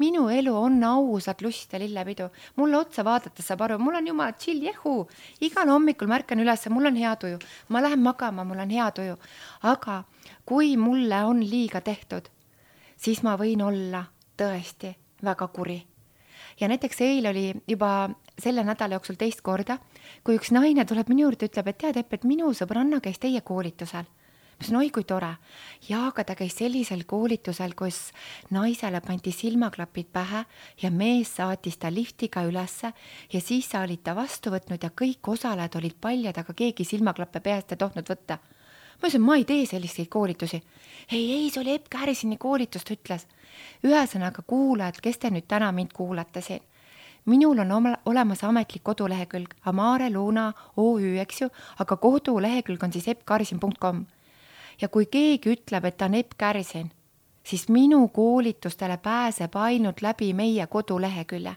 Minu elu on ausad lust ja lillepidu. Mulle otsa vaadates saab aru, mul on jumala chill, jehu. Igal hommikul märkan üles, mul on hea tuju. Ma lähen magama, mul on hea tuju. Aga kui mulle on liiga tehtud, siis ma võin olla tõesti väga kuri. Ja näiteks eile oli juba selle nädala jooksul teist korda, kui üks naine tuleb minu juurde, ütleb, et tead, et minu sõbranna käis teie koolitusel. Ma ütlesin, oi kui tore. Ja aga ta käis sellisel koolitusel, kus naisele pandi silmaklapid pähe ja mees saatis ta liftiga ülesse ja siis sa olid ta vastu võtnud ja kõik osalejad olid paljad, aga keegi silmaklappe peast ei tohnud võtta. Ma ütlesin, ma ei tee selliseid koolitusi. Ei, see oli Epp Kärsini koolitust, ütles. Ühesõnaga kuulajad, kes te nüüd täna mind kuulate siin. minul on olemas ametlik kodulehekülg Amare Luna OÜ, eks ju, aga kodulehekülg on siis eppkarsin.com. Ja kui keegi ütleb, et ta on Epp Kärsin, siis minu koolitustele pääseb ainult läbi meie kodulehekülje.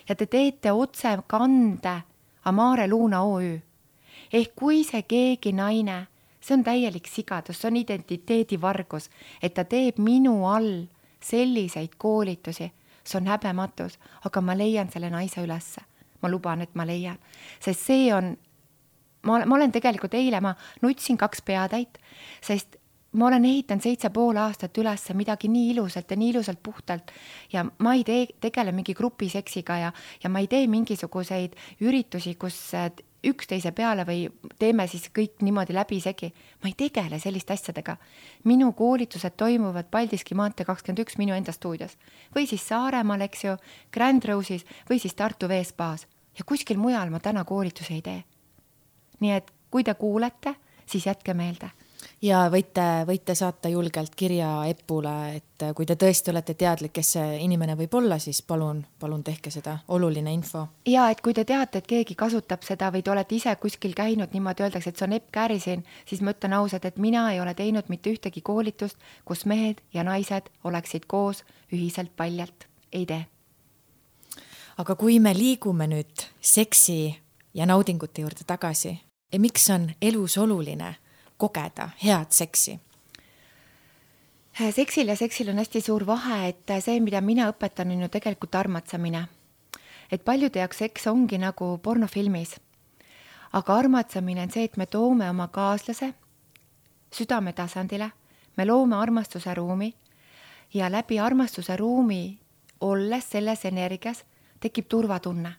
Ja te teete otse kande Amare Luna OÜ. Ehk kui see keegi naine, see on täielik sigadus, see on identiteedivargus, et ta teeb minu all selliseid koolitusi, see on häbematus, aga ma leian selle naise ülesse. Ma luban, et ma leian. Sest see on, ma olen tegelikult eile, ma nutsin 2 peatäit, sest ma olen ehitanud 7,5 aastat üles midagi nii ilusalt ja nii ilusalt puhtalt ja ma ei tegele mingi grupiseksiga ja ma ei tee mingisuguseid üritusi, kus üksteise peale või teeme siis kõik niimoodi läbisegi. Ma ei tegele selliste asjadega. Minu koolitused toimuvad Paldiski maantee 21 minu enda stuudios. Või siis Saaremaal, eks ju, Grand Rose'is või siis Tartu Veespaas. Ja kuskil mujal ma täna koolitusi ei tee. Nii et kui te kuulete, siis jätke meelde. Ja võite saata julgelt kirja Epule, et kui te tõesti olete teadlik, kes see inimene võib olla, siis palun tehke seda, oluline info. Ja et kui te teate, et keegi kasutab seda või te olete ise kuskil käinud, niimoodi öeldakse, et see on Epp Kärsin, siis ma ütlen ausalt, et mina ei ole teinud mitte ühtegi koolitust, kus mehed ja naised oleksid koos ühiselt paljalt. Ei tee. Aga kui me liigume nüüd seksi ja naudingute juurde tagasi, miks on elus oluline kogeda head seksi? Seksil ja seksil on hästi suur vahe, et see, mida mina õpetan, on ju tegelikult armatsamine. Et paljude jaoks seks ongi nagu pornofilmis. Aga armatsamine on see, et me toome oma kaaslase südame tasandile, me loome armastuse ruumi ja läbi armastuse ruumi olles selles energias tekib turvatunne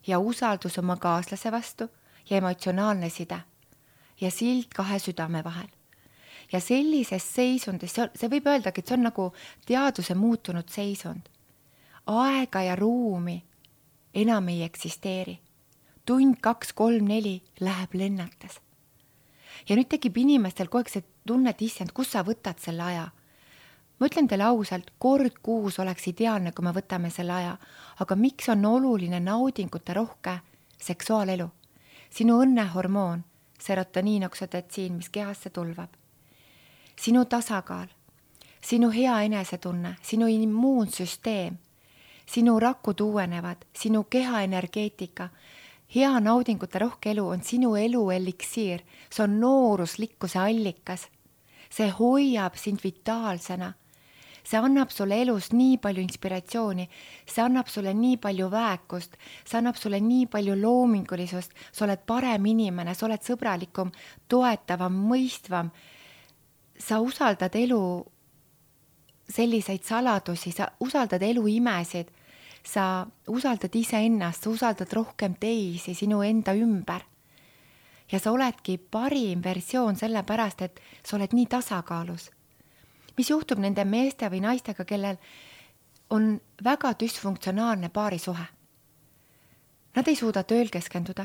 ja usaldus oma kaaslase vastu ja emotsionaalne side ja sild 2 südame vahel. Ja sellises seisundis, see võib öeldagi, et see on nagu teaduse muutunud seisund. Aega ja ruumi enam ei eksisteeri. Tund, 2, 3, 4 läheb lennates. Ja nüüd tekib inimestel kogu aeg see tunne, et issand, kus sa võtad selle aja? Ma ütlen teile ausalt, kord kuus oleks ideaalne, kui me võtame selle aja. Aga miks on oluline naudingute rohke seksuaalelu? Sinu õnnehormoon, serotoniin, oksotetsiin, mis kehasse tulvab. Sinu tasakaal, sinu hea enesetunne, sinu immuunsüsteem, sinu rakud uuenevad, sinu keha energeetika. Hea naudingute rohke elu on sinu elu eliksiir. See on nooruslikkuse allikas. See hoiab sind vitaalsena. See annab sulle elus nii palju inspiratsiooni, see annab sulle nii palju väekust, see annab sulle nii palju loomingulisust, sa oled parem inimene, sa oled sõbralikum, toetavam, mõistvam. Sa usaldad elu selliseid saladusi, sa usaldad elu imesid, sa usaldad iseennast, sa usaldad rohkem teisi sinu enda ümber. Ja sa oledki parim versioon sellepärast, et sa oled nii tasakaalus. Mis juhtub nende meeste või naistega, kellel on väga düsfunktsionaalne paarisuhe? Nad ei suuda tööl keskenduda,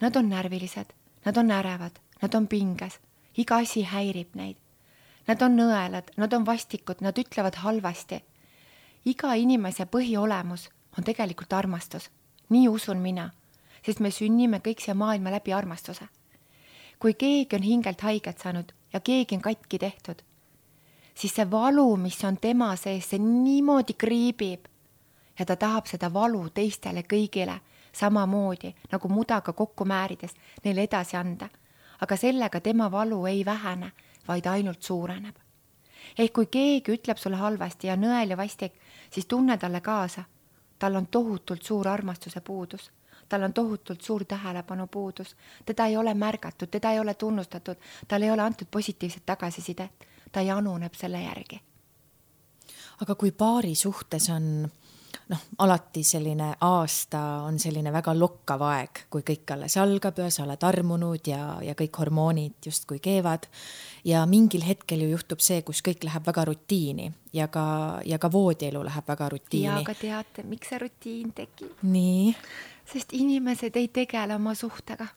nad on närvilised, nad on ärevad, nad on pinges, iga asi häirib neid. Nad on nõelad, nad on vastikud, nad ütlevad halvasti. Iga inimese põhiolemus on tegelikult armastus. Nii usun mina, sest me sünnime kõik siia maailma läbi armastuse. Kui keegi on hingelt haiget saanud ja keegi on katki tehtud, siis see valu, mis on tema sees, see niimoodi kriibib ja ta tahab seda valu teistele kõigile samamoodi, nagu mudaga kokku määrides neile edasi anda. Aga sellega tema valu ei vähene, vaid ainult suureneb. Ehk kui keegi ütleb sulle halvasti ja nõel ja vastik, siis tunne talle kaasa. Tal on tohutult suur armastuse puudus. Tal on tohutult suur tähelepanu puudus. Teda ei ole märgatud, teda ei ole tunnustatud, tal ei ole antud positiivset tagasisidet. Ta januneb selle järgi. Aga kui paari suhtes on alati selline aasta on selline väga lokkav aeg, kui kõik alles algab ja sa oled armunud ja kõik hormoonid just kui keevad ja mingil hetkel ju juhtub see, kus kõik läheb väga rutiini ja ka voodielu läheb väga rutiini. Ja aga teate, miks see rutiin tekib? Nii? Sest inimesed ei tegele oma suhtega.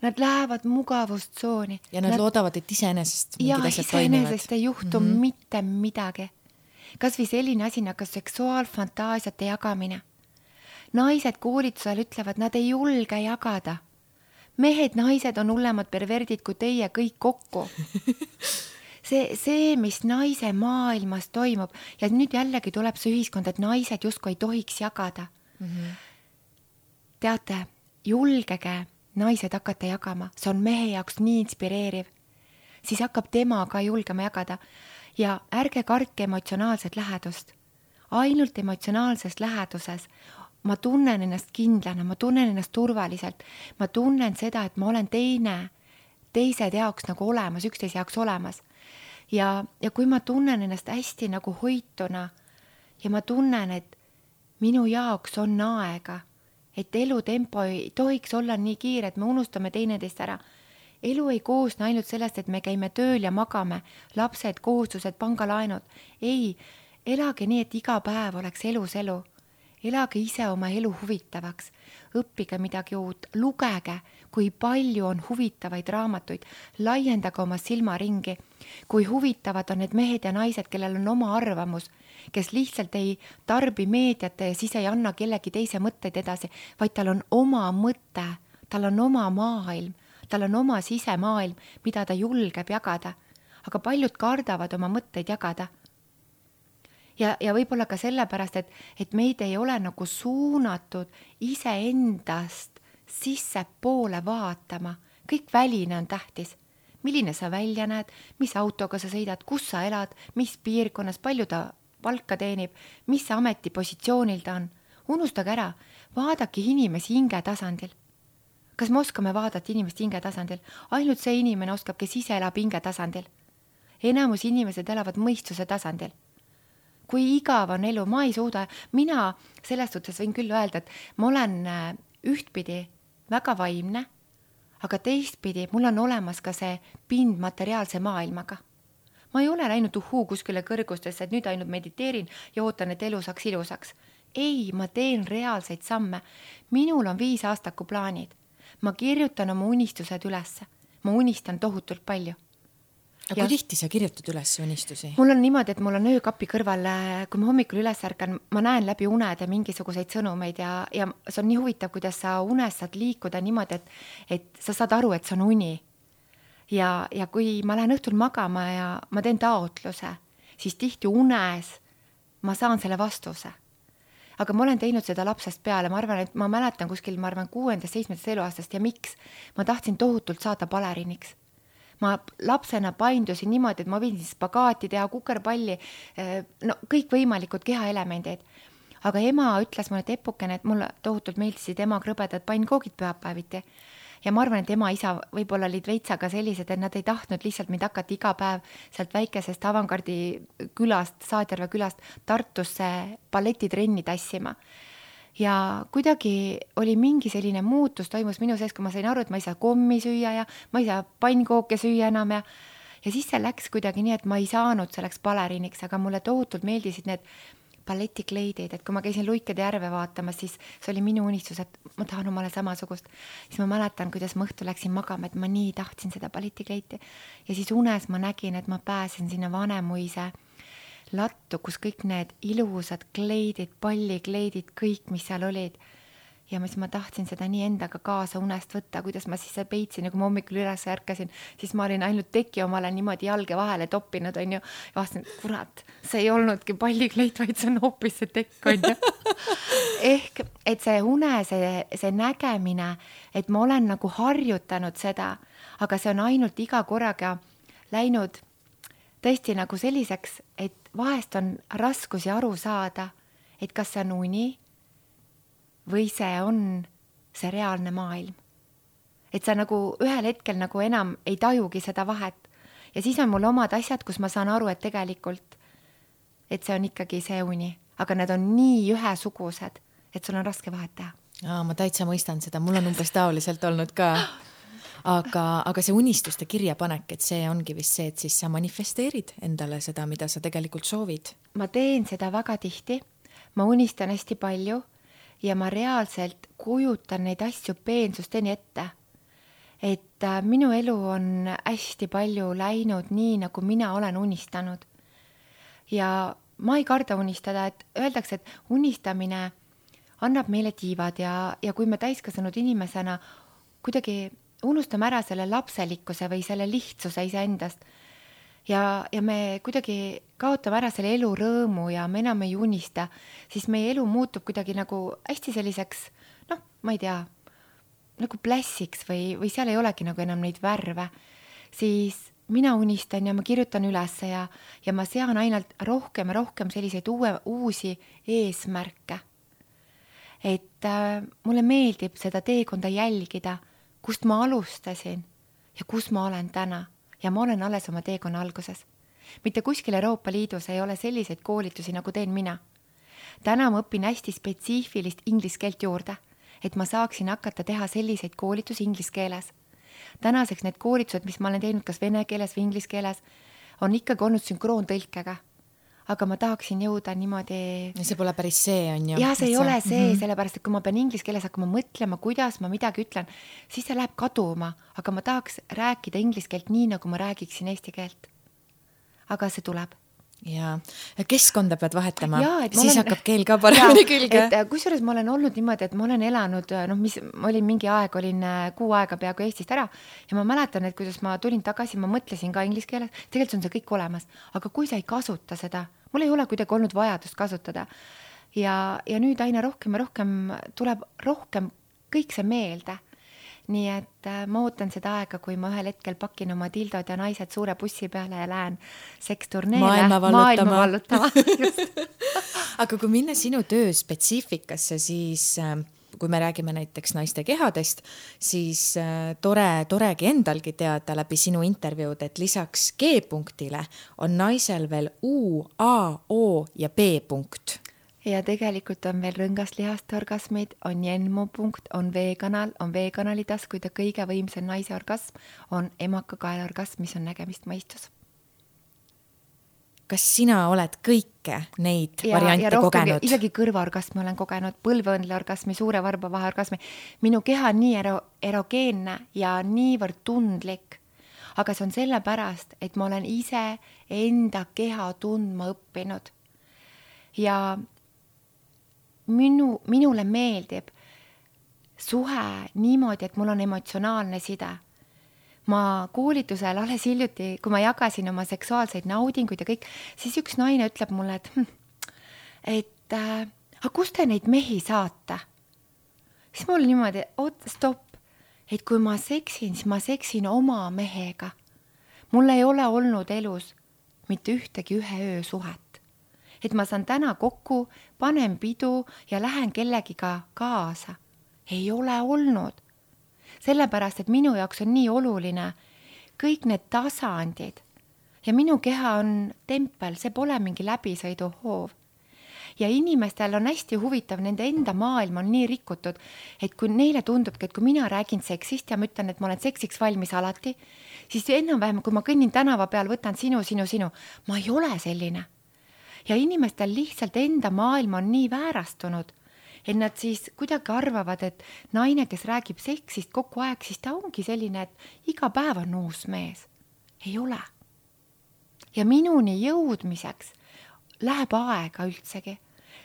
Nad lähevad mugavustsooni. Ja nad loodavad, et iseenesest mingid asjad toimivad. Ja iseenesest ei juhtu mitte midagi. Kas või selline asi nagu seksuaalfantaasiate jagamine. naised koolitusel ütlevad, nad ei julge jagada. Mehed, naised on hullemad perverdid kui teie kõik kokku. See, mis naise maailmas toimub ja nüüd jällegi tuleb see ühiskond, et naised justkui ei tohiks jagada. Teate, julgege naised hakata jagama, see on mehe jaoks nii inspireeriv. Siis hakkab tema ka julgema jagada ja ärge kartke emotsionaalset lähedust. Ainult emotsionaalses läheduses ma tunnen ennast kindlana, ma tunnen ennast turvaliselt, ma tunnen seda, et ma olen teised jaoks nagu olemas, üksteise jaoks olemas. Ja kui ma tunnen ennast hästi nagu hoituna ja ma tunnen, et minu jaoks on aega, et elutempo ei tohiks olla nii kiire, et me unustame teineteist ära. Elu ei koosne ainult sellest, et me käime tööl ja magame, lapsed, kohustused, pangalaenud. Ei, elage nii, et iga päev oleks elus elu. Elage ise oma elu huvitavaks, õppige midagi uut, lugege, kui palju on huvitavaid raamatuid, laiendage oma silmaringi, kui huvitavad on need mehed ja naised, kellel on oma arvamus, kes lihtsalt ei tarbi meediate ja siis ei anna kellegi teise mõtteid edasi, vaid tal on oma mõte, tal on oma maailm, tal on oma sisemaailm, mida ta julgeb jagada, aga paljud kardavad oma mõtteid jagada. Ja võib-olla ka sellepärast, et meid ei ole nagu suunatud iseendast sisse poole vaatama. Kõik väline on tähtis. Milline sa välja näed, mis autoga sa sõidad, kus sa elad, mis piirkonnas, palju ta palka teenib, mis ametipositsioonil ta on. Unustage ära, vaadake inimesi hinge tasandil. Kas me oskame vaadata inimest hinge tasandil? Ainult see inimene oskab, kes ise elab hinge tasandil. Enamus inimesed elavad mõistuse tasandil. Kui igav on elu, ma ei suuda, mina sellest suhtes võin küll öelda, et ma olen ühtpidi väga vaimne, aga teistpidi mul on olemas ka see pind materiaalse maailmaga. Ma ei ole läinud kuskile kõrgustesse, et nüüd ainult mediteerin ja ootan, et elu saaks ilusaks. Ei, ma teen reaalseid samme. Minul on 5 aastaku plaanid. Ma kirjutan oma unistused ülesse. Ma unistan tohutult palju. Aga kui tihti sa kirjutad üles unistusi? Mul on niimoodi, et mul on öökapi kõrval, kui ma hommikul üles ärkan, ma näen läbi unede mingisuguseid sõnumeid ja see on nii huvitav, kuidas sa unes saad liikuda niimoodi, et sa saad aru, et see on uni. Ja kui ma lähen õhtul magama ja ma teen taotluse, siis tihti unes ma saan selle vastuse. Aga ma olen teinud seda lapsest peale, ma arvan, et ma mäletan kuskil, 6.-7. eluaastast ja miks? Ma tahtsin tohutult saada baleriniks. Ma lapsena paindusin niimoodi, et ma võin spagaati teha, kukerpalli, no kõik võimalikud kehaelemendid. Aga ema ütles mulle tepukene, et mulle tohutult meeldisid ema krõbedad pannkoogid pühapäeviti. Ja ma arvan, et ema isa võib-olla olid veitsaga sellised, et nad ei tahtnud lihtsalt mind hakata iga päev sealt väikesest Avangardi külast, Saadjärve külast Tartusse balletitrenni tassima. Ja kuidagi oli mingi selline muutus toimus minu sees, kui ma sain aru, et ma ei saa kommi süüa ja ma ei saa pannkooke süüa enam ja siis see läks kuidagi nii, et ma ei saanud selleks baleriniks, aga mulle tohutult meeldisid need balletikleidid, et kui ma käisin Luikede järve vaatamas, siis see oli minu unistus, et ma tahan omale samasugust. Siis ma mäletan, kuidas ma õhtul läksin magama, et ma nii tahtsin seda balletikleiti ja siis unes ma nägin, et ma pääsen sinna Vanemuise lattu, kus kõik need ilusad kleidid, pallikleidid, kõik, mis seal olid. Ja siis ma tahtsin seda nii endaga kaasa unest võtta, kuidas ma siis peitsin ja kui ma hommikul üles ärkasin, siis ma olin ainult teki omale niimoodi jalge vahele toppinud, on ju. Ja vastasin, kurat, see ei olnudki pallikleit, vaid see on hoopis see tekk, on ju. Ehk, et see une, see nägemine, et ma olen nagu harjutanud seda, aga see on ainult iga korraga läinud tõesti nagu selliseks, et vahest on raskusi aru saada, et kas see on uni või see on see reaalne maailm. Et sa nagu ühel hetkel nagu enam ei tajugi seda vahet. Ja siis on mul omad asjad, kus ma saan aru, et tegelikult, et see on ikkagi see uni. Aga need on nii ühesugused, et sul on raske vahet teha. Ma täitsa mõistan seda, mul on umbes taoliselt olnud ka. Aga see unistuste kirjapanek, et see ongi vist see, et siis sa manifesteerid endale seda, mida sa tegelikult soovid. Ma teen seda väga tihti, ma unistan hästi palju ja ma reaalselt kujutan neid asju peensusteni ette. Et minu elu on hästi palju läinud nii, nagu mina olen unistanud. Ja ma ei karda unistada, et öeldakse, et unistamine annab meile tiivad ja kui me täiskasvanud inimesena kuidagi unustame ära selle lapselikkuse või selle lihtsuse iseendast ja me kuidagi kaotame ära selle elu rõõmu ja me enam ei unista, siis meie elu muutub kuidagi nagu hästi selliseks, ma ei tea, nagu plässiks või seal ei olegi nagu enam neid värve, siis mina unistan ja ma kirjutan üles ja ma sean ainult rohkem ja rohkem selliseid uusi eesmärke. Et mulle meeldib seda teekonda jälgida, kust ma alustasin ja kus ma olen täna ja ma olen alles oma teekonna alguses. Mitte kuskil Euroopa Liidus ei ole selliseid koolitusi, nagu teen mina. Täna ma õpin hästi spetsiifilist inglise keelt juurde, et ma saaksin hakata teha selliseid koolitusi inglise keeles. Tänaseks need koolitused, mis ma olen teinud kas vene keeles või inglise keeles, on ikkagi olnud sünkroontõlkega. Aga ma tahaksin jõuda niimoodi... Ja see pole päris see, on ju? Ja see ei ole see, sellepärast, et kui ma pean inglise keeles hakkama mõtlema, kuidas ma midagi ütlen, siis see läheb kaduma, aga ma tahaks rääkida inglise keelt nii, nagu ma räägiksin eesti keelt. Aga see tuleb. Ja keskkonda pead vahetama, siis olen... hakkab keel ka paremini külge. Kusjuures ma olen olnud niimoodi, et ma olen elanud, ma olin mingi aeg, olin 6 aega peaaegu Eestist ära ja ma mäletan, et kuidas ma tulin tagasi, ma mõtlesin ka inglise keeles, tegelikult on see kõik olemas, aga kui sa ei kasuta seda, mul ei ole kuidagi olnud vajadust kasutada ja nüüd aina rohkem ja rohkem tuleb rohkem kõik see meelde. Nii et ma ootan seda aega, kui ma ühel hetkel pakin oma dildod ja naised suure bussi peale ja lähen seksturneele maailma vallutama. Aga kui minna sinu töö spetsiifikasse, siis kui me räägime näiteks naiste kehadest, siis toregi endalgi teada läbi sinu intervjuud, et lisaks G-punktile on naisel veel U, A, O ja B-punkt. Ja tegelikult on veel rõngaslihaste orgasmid, on jenmu-punkt, on V-kanal, on V-kanali taskuid ja kõige võimsam naise orgasm on emakakaela orgasm, mis on nägemist mõistus. Kas sina oled kõike neid variante kogenud? Isegi kõrvaorgasmi olen kogenud, põlveõndle orgasmi, suure varba vahe orgasmi. Minu keha on nii erogeenne ja niivõrd tundlik, aga see on sellepärast, et ma olen ise enda keha tundma õppinud. Ja minule meeldib suhe niimoodi, et mul on emotsionaalne side. Ma koolitusel alles hiljuti, kui ma jagasin oma seksuaalseid naudinguid ja kõik, siis üks naine ütleb mulle, et aga kust te neid mehi saate? Siis mul niimoodi, stopp, et kui ma seksin, siis ma seksin oma mehega. Mul ei ole olnud elus mitte ühtegi ühe öö suhet. Et ma saan täna kokku, panen pidu ja lähen kellegiga kaasa. Ei ole olnud. Sellepärast, et minu jaoks on nii oluline kõik need tasandid. Ja minu keha on tempel, see pole mingi läbisõiduhoov. Ja inimestel on hästi huvitav, nende enda maailm on nii rikutud, et kui neile tundubki, et kui mina räägin seksist ja ma ütlen, et ma olen seksiks valmis alati, siis enam-vähem, kui ma kõnnin tänava peal, võtan sinu, ma ei ole selline. Ja inimestel lihtsalt enda maailm on nii väärastunud, et nad siis kuidagi arvavad, et naine, kes räägib seksist kogu aeg, siis ta ongi selline, et iga päev on uus mees. Ei ole. Ja minuni jõudmiseks läheb aega üldsegi,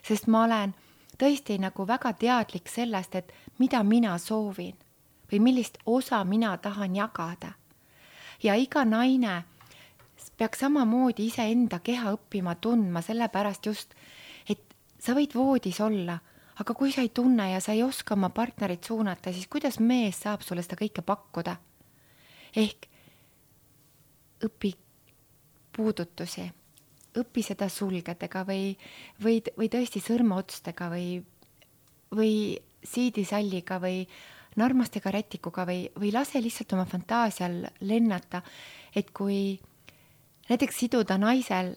sest ma olen tõesti nagu väga teadlik sellest, et mida mina soovin või millist osa mina tahan jagada. Ja iga naine peaks samamoodi ise enda keha õppima tundma, sellepärast just, et sa võid voodis olla, aga kui sa ei tunne ja sa ei oska oma partnerit suunata, siis kuidas mees saab sulle seda kõike pakkuda? Ehk õpi puudutusi, õpi seda sulgedega või tõesti sõrmeotstega või siidisalliga või narmastega rätikuga või lase lihtsalt oma fantaasial lennata, et kui näiteks siduda naisel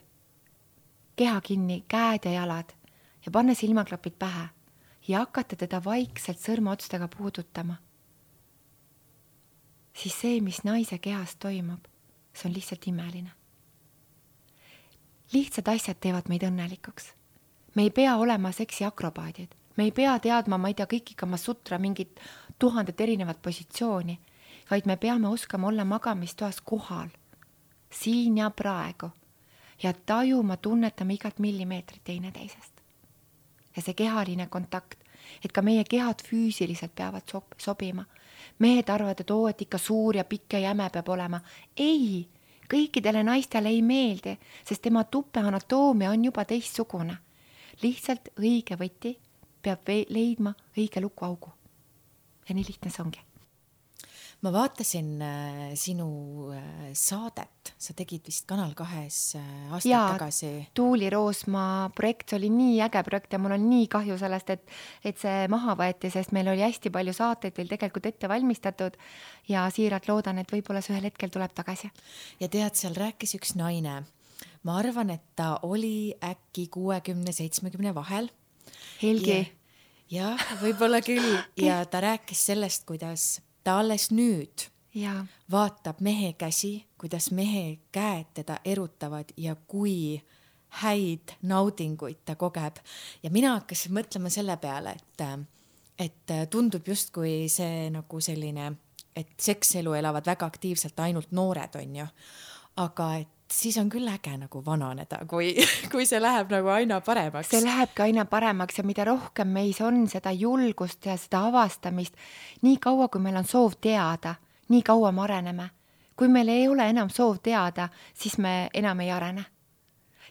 keha kinni, käed ja jalad ja panna silmaklapid pähe ja hakata teda vaikselt sõrmeotstega puudutama, siis see, mis naise kehas toimub, see on lihtsalt imeline. Lihtsad asjad teevad meid õnnelikuks. Me ei pea olema seksi akrobaadid. Me ei pea teadma, ma ei tea, kõik ikka sutra mingit 1000 erinevat positsiooni, vaid me peame oskama olla magamistoas kohal. Siin ja praegu ja tajuma, tunnetama igat millimeetrit teine teisest. Ja see kehaline kontakt, et ka meie kehad füüsiliselt peavad sobima. Mehed arvavad, et ikka suur ja pikk ja jäme peab olema. Ei, kõikidele naistele ei meeldi, sest tema tuppe anatoomia on juba teistsugune. Lihtsalt õige võti peab leidma õige lukuaugu. Ja nii lihtne see ongi. Ma vaatasin sinu saadet, sa tegid vist Kanal 2 aastaid tagasi. Tuuli Roosma projekt oli nii äge projekt ja mul on nii kahju sellest, et see maha võeti, sest meil oli hästi palju saateid veel tegelikult ette valmistatud ja siiralt loodan, et võib-olla see ühel hetkel tuleb tagasi. Ja tead, seal rääkis üks naine. Ma arvan, et ta oli äkki 60-70 vahel. Helgi. Ja võib-olla küll. Ja ta rääkis sellest, kuidas ta alles nüüd vaatab mehe käsi, kuidas mehe käed teda erutavad ja kui häid naudinguid ta kogeb. Ja mina hakkasin mõtlema selle peale, et tundub justkui see nagu selline, et sekselu elavad väga aktiivselt ainult noored, on ju. Aga et siis on küll äge nagu vananeda, kui see läheb nagu aina paremaks. See lähebki aina paremaks ja mida rohkem meis on seda julgust ja seda avastamist, nii kaua, kui meil on soov teada, nii kaua me areneme. Kui meil ei ole enam soov teada, siis me enam ei arene.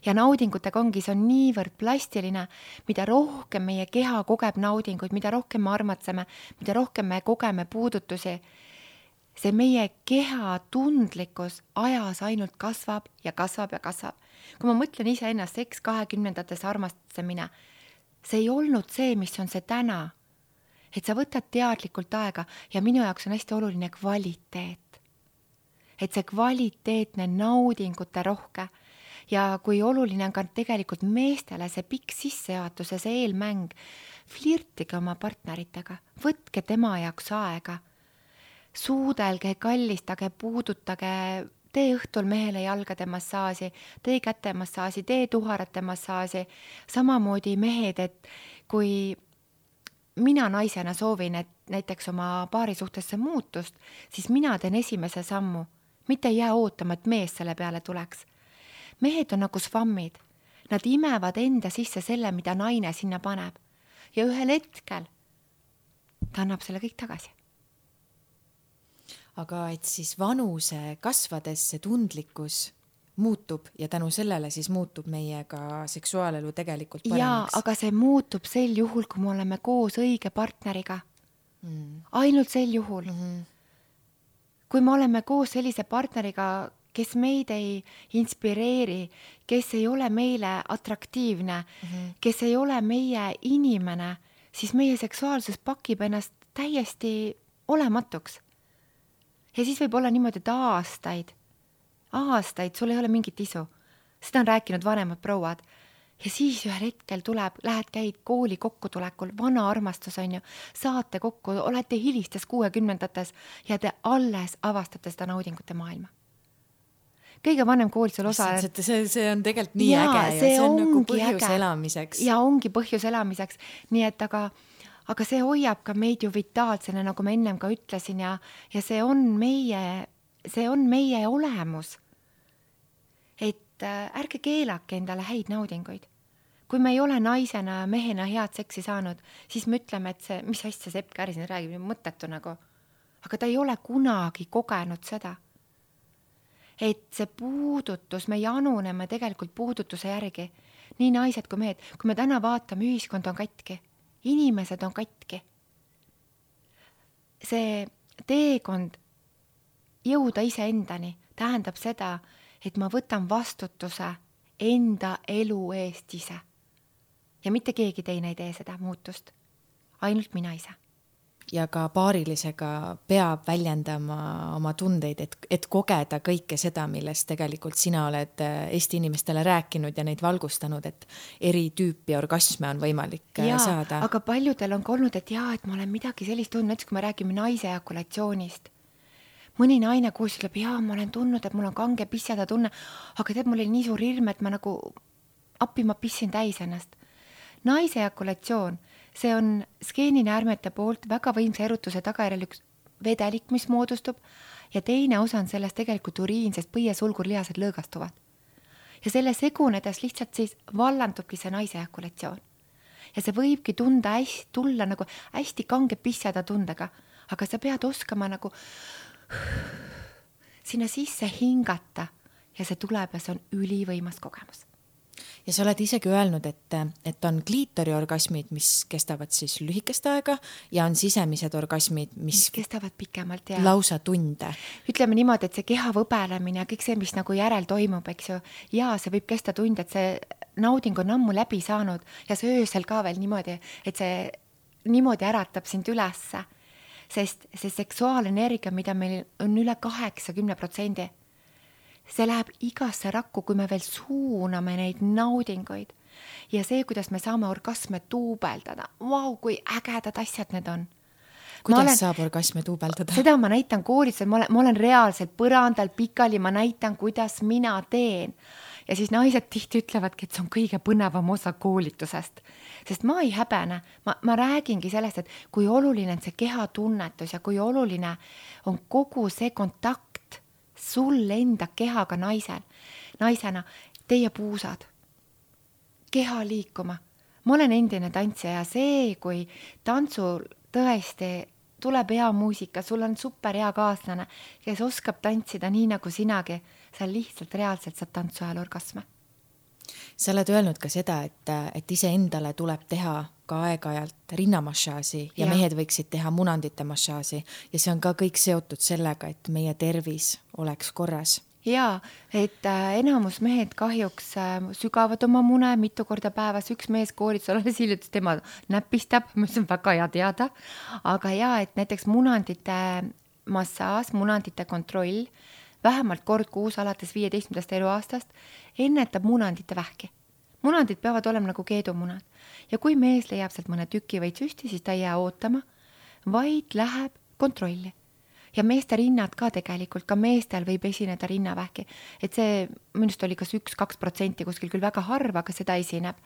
Ja naudingutega ongi, see on niivõrd plastiline, mida rohkem meie keha kogeb naudinguid, mida rohkem me armatseme, mida rohkem me kogeme puudutusi, see meie keha tundlikkus ajas ainult kasvab ja kasvab ja kasvab. Kui ma mõtlen ise ennast seks 20-ndates armastamine, see ei olnud see, mis on see täna. Et sa võtad teadlikult aega ja minu jaoks on hästi oluline kvaliteet. Et see kvaliteetne naudingute rohke ja kui oluline on ka tegelikult meestele see pikk sissejuhatus ja see eelmäng, flirtige oma partneritega, võtke tema jaoks aega. Suudelge, kallistage, puudutage, tee õhtul mehele jalgade massaaži, tee käte massaaži, tee tuharate massaaži. Samamoodi mehed, et kui mina naisena soovin, et näiteks oma paari suhtesse muutust, siis mina teen esimese sammu. Mitte ei jää ootama, et mees selle peale tuleks. Mehed on nagu svammid. Nad imevad enda sisse selle, mida naine sinna paneb. Ja ühel hetkel ta annab selle kõik tagasi. Aga et siis vanuse kasvades see tundlikkus muutub ja tänu sellele siis muutub meie ka seksuaalelu tegelikult paremaks. Jaa, aga see muutub sel juhul, kui me oleme koos õige partneriga. Ainult sel juhul. Kui me oleme koos sellise partneriga, kes meid ei inspireeri, kes ei ole meile atraktiivne, kes ei ole meie inimene, siis meie seksuaalsus pakib ennast täiesti olematuks. Ja siis võib olla niimoodi, et aastaid sul ei ole mingit isu. Seda on rääkinud vanemad prouad. Ja siis ühel hetkel tuleb, käid kooli kokkutulekul, vana armastus on ju, saate kokku, olete hilistes 60-ndates ja te alles avastate seda naudingute maailma. Kõige vanem koolitusel osa... See on tegelikult nii äge ja see on nagu põhjus elamiseks. Ja ongi põhjus elamiseks. Nii et aga see hoiab ka meid ju vitaalsena, nagu ma ennem ka ütlesin ja see on meie olemus. Et ärge keelake endale häid naudinguid. Kui me ei ole naisena, mehena head seksi saanud, siis me ütleme, et see, mis asja Sepp Käri siin räägib, mõttetu nagu. Aga ta ei ole kunagi kogenud seda. Et see puudutus, me januneme tegelikult puudutuse järgi. Nii naised kui mehed. Kui me täna vaatame, ühiskond on katki. Inimesed on katki. See teekond jõuda iseendani tähendab seda, et ma võtan vastutuse enda elu eest ise. Ja mitte keegi teine ei tee seda muutust. Ainult mina ise. Ja ka paarilisega peab väljendama oma tundeid, et kogeda kõike seda, millest tegelikult sina oled Eesti inimestele rääkinud ja neid valgustanud, et eri tüüpi orgasme on võimalik saada. Aga paljudel on olnud, et et ma olen midagi sellist tundnud, näiteks kui me räägime naise ejakulatsioonist. Mõni naine koos ütleb, ma olen tundnud, et mul on kange pissada tunne, aga tead, mul oli nii suur hirm, et ma nagu ma pissin täis ennast. Naise ejakulatsioon, see on skeeninäärmete poolt väga võimsa erutuse tagajärjel üks vedelik, mis moodustub ja teine osa on sellest tegelikult uriin, sest põiesulgurlihased lõõgastuvad. Ja selle segunedes lihtsalt siis vallandubki see naise ejakulatsioon. ja see võibki tulla nagu hästi kange pisseda tundega, aga sa pead oskama nagu sinna sisse hingata ja see tuleb ja see on ülivõimas kogemus. Ja sa oled isegi öelnud, et on kliitoriorgasmid, mis kestavad siis lühikest aega ja on sisemised orgasmid, mis kestavad pikemalt ja lausa tunde. Ütleme niimoodi, et see keha võbelemine ja kõik see, mis nagu järel toimub, eks ju, ja see võib kesta tunde, et see nauding on ammu läbi saanud ja see öösel ka veel niimoodi, et see niimoodi äratab sind ülesse, sest see seksuaalenergia, mida meil on üle 80%, see läheb igasse rakku, kui me veel suuname neid naudinguid. Ja see, kuidas me saame orgasme tuubeldada. Vau, kui ägedad asjad need on. Kuidas saab orgasme tuubeldada? Seda ma näitan koolis, ma olen reaalselt põrandal pikali, ma näitan, kuidas mina teen. Ja siis naised tihti ütlevadki, et see on kõige põnevam osa koolitusest. Sest ma ei häbene. Ma räägingi sellest, et kui oluline on see kehatunnetus ja kui oluline on kogu see kontakt sul enda kehaga naisena, teie puusad, keha liikuma. Ma olen endine tantsija ja see, kui tantsul tõesti tuleb hea muusika, sul on super hea kaaslane, kes oskab tantsida nii nagu sinagi, sa lihtsalt reaalselt saad tantsu ajal orgasme. Sa oled öelnud ka seda, et ise endale tuleb teha ka aeg-ajalt rinnamassaaži ja mehed võiksid teha munandite massaaži ja see on ka kõik seotud sellega, et meie tervis oleks korras. Jaa, et enamus mehed kahjuks sügavad oma mune mitu korda päevas. Üks mees koolitus alles hiljutis, tema näpistab, mis on väga hea teada. Aga jaa, et näiteks munandite massaaž, munandite kontroll, vähemalt kord kuus alates 15. eluaastast ennetab munandite vähki. Munandid peavad olema nagu keedumunad. Ja kui mees leiab sealt mõne tüki või süsti, siis ta ei jää ootama, vaid läheb kontrolli. Ja meeste rinnad ka tegelikult, ka meestel võib esineda rinnavähki. Et see minust oli kas 1-2% kuskil küll väga harva, aga seda esineb.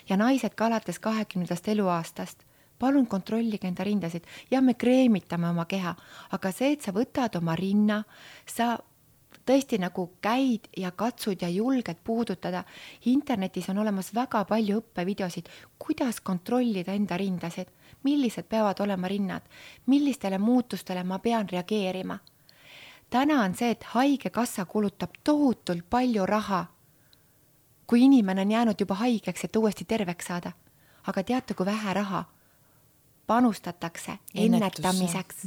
Ja naised ka alates 20. eluaastast. Palun kontrollige enda rindasid. Ja me kreemitame oma keha. Aga see, et sa võtad oma rinna, sa tõesti nagu käid ja katsud ja julged puudutada. Internetis on olemas väga palju õppevideosid, kuidas kontrollida enda rindasid, millised peavad olema rinnad, millistele muutustele ma pean reageerima. Täna on see, et haigekassa kulutab tohutult palju raha, kui inimene on jäänud juba haigeks, et uuesti terveks saada. Aga teate, kui vähe raha panustatakse ennetamiseks.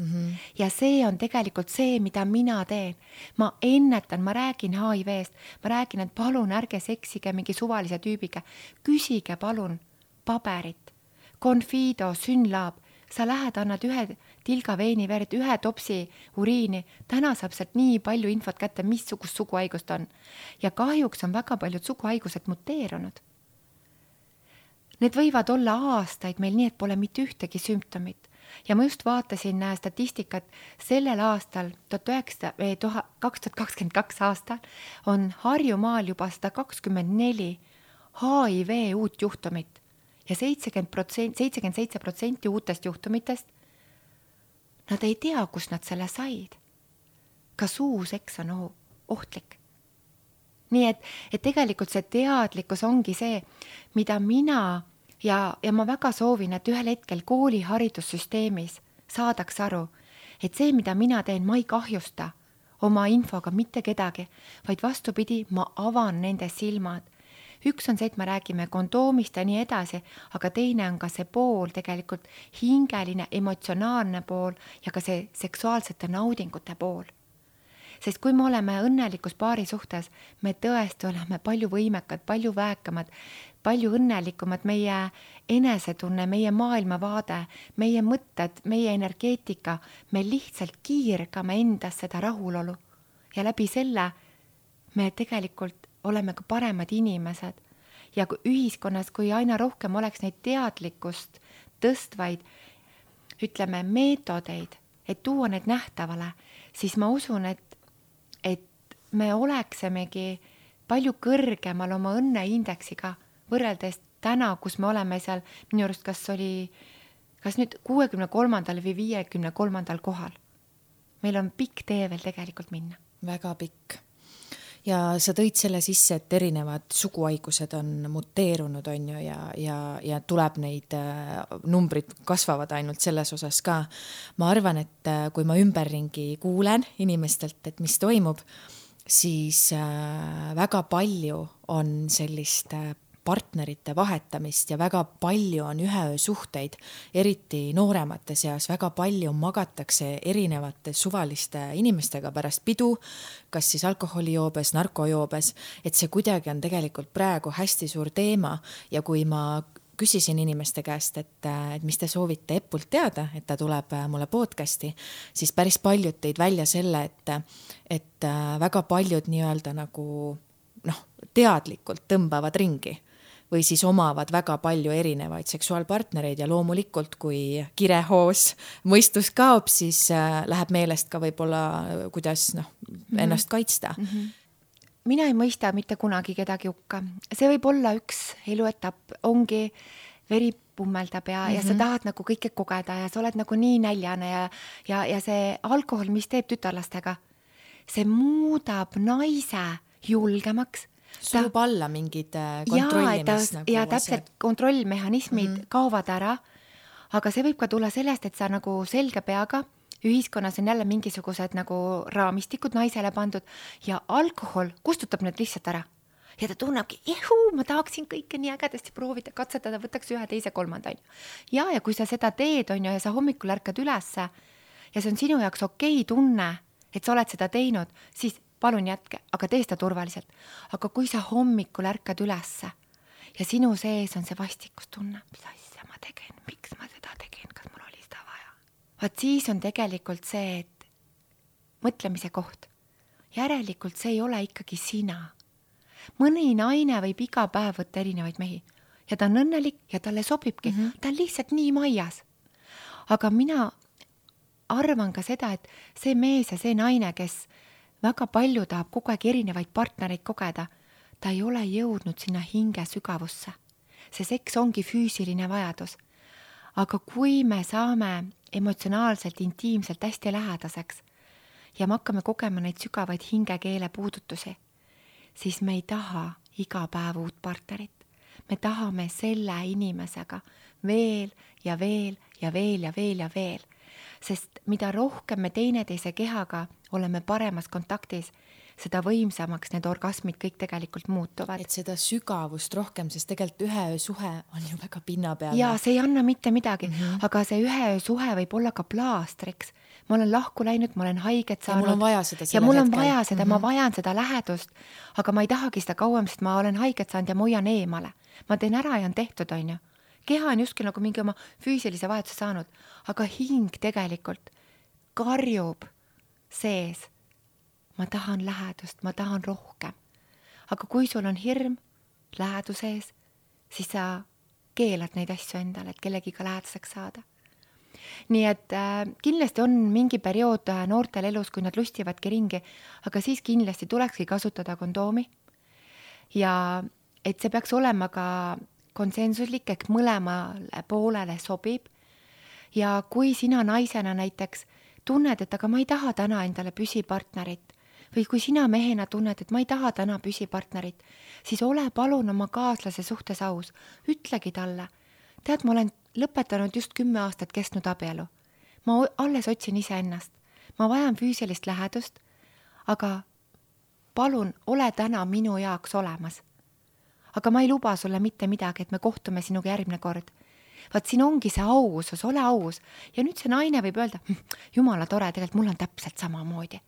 Ja see on tegelikult see, mida mina teen. Ma ennetan, ma räägin HIV-st, ma räägin, et palun ärge seksige mingi suvalise tüübiga. Küsige palun paberit, Confido, Synlab. Sa lähed, annad ühe tilga veiniverd, ühe topsi uriini. Täna saab sealt nii palju infot kätte, missugust suguhaigust on. Ja kahjuks on väga paljud suguhaigused muteerunud. Need võivad olla aastaid meil nii, et pole mitte ühtegi sümptomit. Ja ma just vaatasin statistikat sellel aastal, 2022 aastal, on Harjumaal juba 124 HIV uut juhtumit ja 77% uutest juhtumitest, nad ei tea, kus nad selle said. Ka suuseks on ohtlik. Nii et tegelikult see teadlikkus ongi see, mida mina ja ma väga soovin, et ühel hetkel kooli haridussüsteemis saadaks aru, et see, mida mina teen, ma ei kahjusta oma infoga mitte kedagi, vaid vastupidi, ma avan nende silmad. Üks on see, et me räägime kondoomist ja nii edasi, aga teine on ka see pool tegelikult hingeline, emotsionaalne pool ja ka see seksuaalsete naudingute pool. Sest kui me oleme õnnelikus paari suhtes, me tõesti oleme palju võimekad, palju väekamad, palju õnnelikumad, meie enesetunne, meie maailmavaade, meie mõtted, meie energeetika, me lihtsalt kiirgame endas seda rahulolu. Ja läbi selle me tegelikult oleme ka paremad inimesed. Ja kui ühiskonnas, kui aina rohkem oleks neid teadlikkust tõstvaid, ütleme, meetodeid, et tuua need nähtavale, siis ma usun, et me oleksemegi palju kõrgemal oma õnneindeksiga võrreldes täna, kus me oleme seal, minu arust kas nüüd 63. või 53. kohal. Meil on pikk tee veel tegelikult minna. Väga pikk. ja sa tõid selle sisse, et erinevad suguhaigused on muteerunud, on ju, ja tuleb neid numbrid kasvavad ainult selles osas ka. Ma arvan, et kui ma ümberringi kuulen inimestelt, et mis toimub, siis väga palju on sellist partnerite vahetamist ja väga palju on üheöösuhteid, eriti nooremate seas, väga palju magatakse erinevate suvaliste inimestega pärast pidu, kas siis alkoholijoobes, narkojoobes, et see kuidagi on tegelikult praegu hästi suur teema ja kui ma küsisin inimeste käest, et mis te soovite Epult teada, et ta tuleb mulle podcasti, siis päris paljud tõid välja selle, et väga paljud nii-öelda nagu teadlikult tõmbavad ringi või siis omavad väga palju erinevaid seksuaalpartnereid ja loomulikult, kui kirehoos mõistus kaob, siis läheb meelest ka võib-olla, kuidas ennast kaitsta. Mina ei mõista mitte kunagi kedagi hukka. See võib olla üks eluetapp, ongi veri pummeldab ja sa tahad nagu kõike kogeda ja sa oled nagu nii näljane ja see alkohol, mis teeb tütarlastega, see muudab naise julgemaks. Surub alla mingid kontrollimis ja täpselt kontrollmehhanismid kaovad ära, aga see võib ka tulla sellest, et sa nagu selge peaga, ühiskonnas on jälle mingisugused nagu raamistikud naisele pandud ja alkohol kustutab need lihtsalt ära. Ja ta tunnebki, ma tahaksin kõike nii ägedasti proovida, katsetada, võtaks ühe, teise, kolmanda. Ja kui sa seda teed, on ju, ja sa hommikul ärkad ülesse ja see on sinu jaoks okei tunne, et sa oled seda teinud, siis palun jätke, aga tee seda turvaliselt. Aga kui sa hommikul ärkad ülesse ja sinu sees on see vastikustunne, mis asja ma tegin, miks ma seda tegin, kas mul oli seda vaja? Vaat siis on tegelikult see, et mõtlemise koht. Järelikult see ei ole ikkagi sina. Mõni naine võib iga päev võtta erinevaid mehi ja ta on õnnelik ja talle sobibki. Ta on lihtsalt nii maias. Aga mina arvan ka seda, et see mees ja see naine, kes väga palju tahab kogu aeg erinevaid partnereid kogeda, ta ei ole jõudnud sinna hinge sügavusse. See seks ongi füüsiline vajadus. Aga kui me saame emotsionaalselt, intiimselt hästi lähedaseks ja me hakkame kogema neid sügavaid hingekeele puudutusi, siis me ei taha iga päev uut partnerit. Me tahame selle inimesega veel ja veel ja veel ja veel ja veel. Sest mida rohkem me teineteise kehaga oleme paremas kontaktis, seda võimsamaks need orgasmid kõik tegelikult muutuvad. Et seda sügavust rohkem, sest tegelikult üheöösuhe on ju väga pinnapealne. Ja see ei anna mitte midagi, aga see üheöösuhe võib olla ka plaastriks. Ma olen lahku läinud, ma olen haiget saanud. Ja mul on vaja seda ja mul on vaja seda, ma vajan seda lähedust, aga ma ei tahagi seda kauem, sest ma olen haiget saanud ja ma hoian eemale. Ma teen ära ja on tehtud, on ju. Keha on justkui nagu mingi oma füüsilise vajaduse saanud, aga hing tegelikult karjub sees. Ma tahan lähedust, ma tahan rohkem. Aga kui sul on hirm läheduse ees, siis sa keelad neid asju endale, et kellegiga lähedaseks saada. Nii et kindlasti on mingi periood noortel elus, kui nad lustivadki ringi, aga siis kindlasti tulekski kasutada kondoomi. Ja et see peaks olema ka konsensuslik, ehk mõlemale poolele sobib. Ja kui sina naisena näiteks tunned, et aga ma ei taha täna endale püsipartnerit või kui sina mehena tunned, et ma ei taha täna püsipartnerit, siis ole palun oma kaaslase suhtes aus. Ütlegi talle, tead, ma olen lõpetanud just 10 aastat kestnud abielu. Ma alles otsin ise ennast. Ma vajan füüsilist lähedust, aga palun ole täna minu jaoks olemas. Aga ma ei luba sulle mitte midagi, et me kohtume sinuga järgmine kord. Vaat siin ongi see ausus, ole aus. Ja nüüd see naine võib öelda, jumala tore, tegelikult mul on täpselt sama moodi.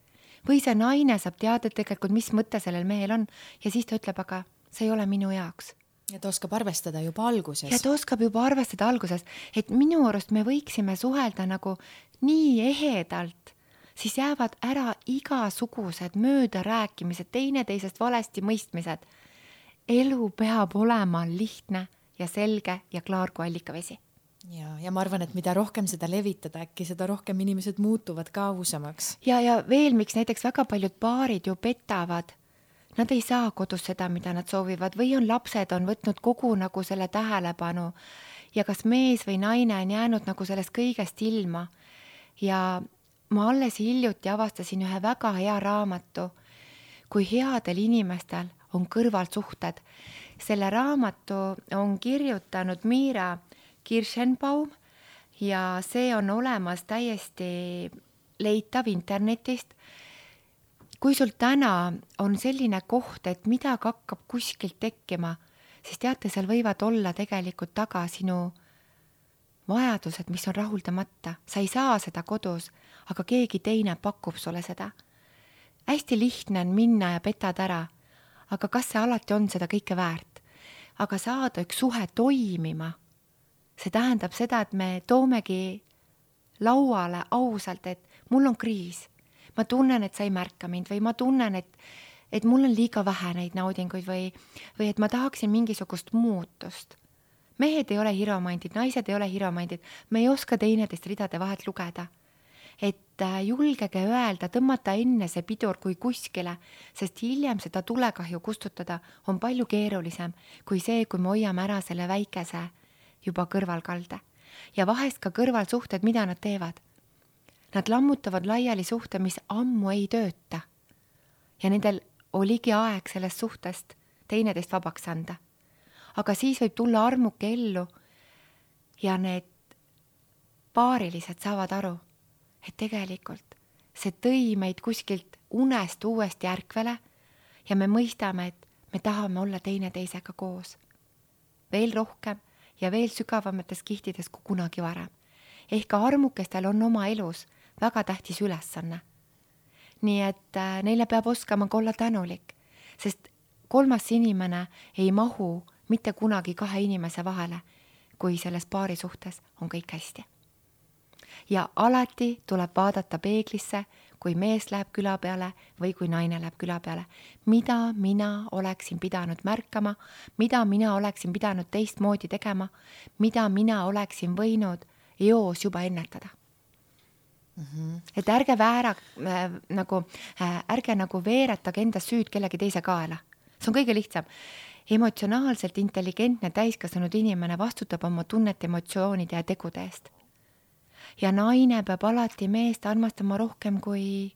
Või see naine saab teada tegelikult, mis mõte sellel mehel on ja siis ta ütleb, aga see ei ole minu jaoks. Ja ta oskab arvestada juba alguses. Ja ta oskab juba arvestada alguses, et minu arust me võiksime suhelda nagu nii ehedalt, siis jäävad ära igasugused möödarääkimised, teineteisest valesti mõistmised. Elu peab olema lihtne ja selge ja klaar kui allikavesi. Ja ma arvan, et mida rohkem seda levitada, äkki seda rohkem inimesed muutuvad ka ausamaks. Ja veel, miks näiteks väga paljud paarid ju petavad. Nad ei saa kodus seda, mida nad soovivad või on lapsed on võtnud kogu nagu selle tähelepanu ja kas mees või naine on jäänud nagu sellest kõigest ilma. Ja ma alles hiljuti avastasin ühe väga hea raamatu, kui headel inimestel on kõrvalsuhted. Selle raamatu on kirjutanud Miira Kirschenbaum ja see on olemas täiesti leitav internetist. Kui sul täna on selline koht, et midagi hakkab kuskilt tekkima, siis teate, seal võivad olla tegelikult taga sinu vajadused, mis on rahuldamata. Sa ei saa seda kodus, aga keegi teine pakub sulle seda. Hästi lihtne on minna ja petad ära, aga kas see alati on seda kõike väärt? Aga saada üks suhe toimima, see tähendab seda, et me toomegi lauale ausalt, et mul on kriis. Ma tunnen, et sa ei märka mind või ma tunnen, et mul on liiga vähe neid naudinguid või et ma tahaksin mingisugust muutust. Mehed ei ole hiromandid, naised ei ole hiromandid. Me ei oska teineteist ridade vahelt lugeda. Et julgege öelda, tõmmata enne see pidur kui kuskile, sest hiljem seda tulekahju kustutada on palju keerulisem kui see, kui me hoiame ära selle väikese juba kõrvalkalde. Ja vahest ka kõrvalsuhted, mida nad teevad. Nad lammutavad laiali suhte, mis ammu ei tööta. Ja nendel oligi aeg sellest suhtest teineteist vabaks anda. Aga siis võib tulla armuke ellu ja need paarilised saavad aru, et tegelikult see tõi meid kuskilt unest uuesti ärkvele ja me mõistame, et me tahame olla teineteisega koos. Veel rohkem ja veel sügavamates kihtides kui kunagi varem. Ehk armukestel on oma elus väga tähtis ülesanne. Nii et neile peab oskama olla tänulik, sest kolmas inimene ei mahu mitte kunagi kahe inimese vahele, kui selles paari suhtes on kõik hästi. Ja alati tuleb vaadata peeglisse, kui mees läheb küla peale või kui naine läheb küla peale. Mida mina oleksin pidanud märkama, mida mina oleksin pidanud teistmoodi tegema, mida mina oleksin võinud eos juba ennetada. Et ärge veeretage enda süüd kellegi teise kaela. See on kõige lihtsam. Emotsionaalselt intelligentne täiskasvanud inimene vastutab oma tunnete, emotsioonide ja tegude eest. Ja naine peab alati meest armastama rohkem kui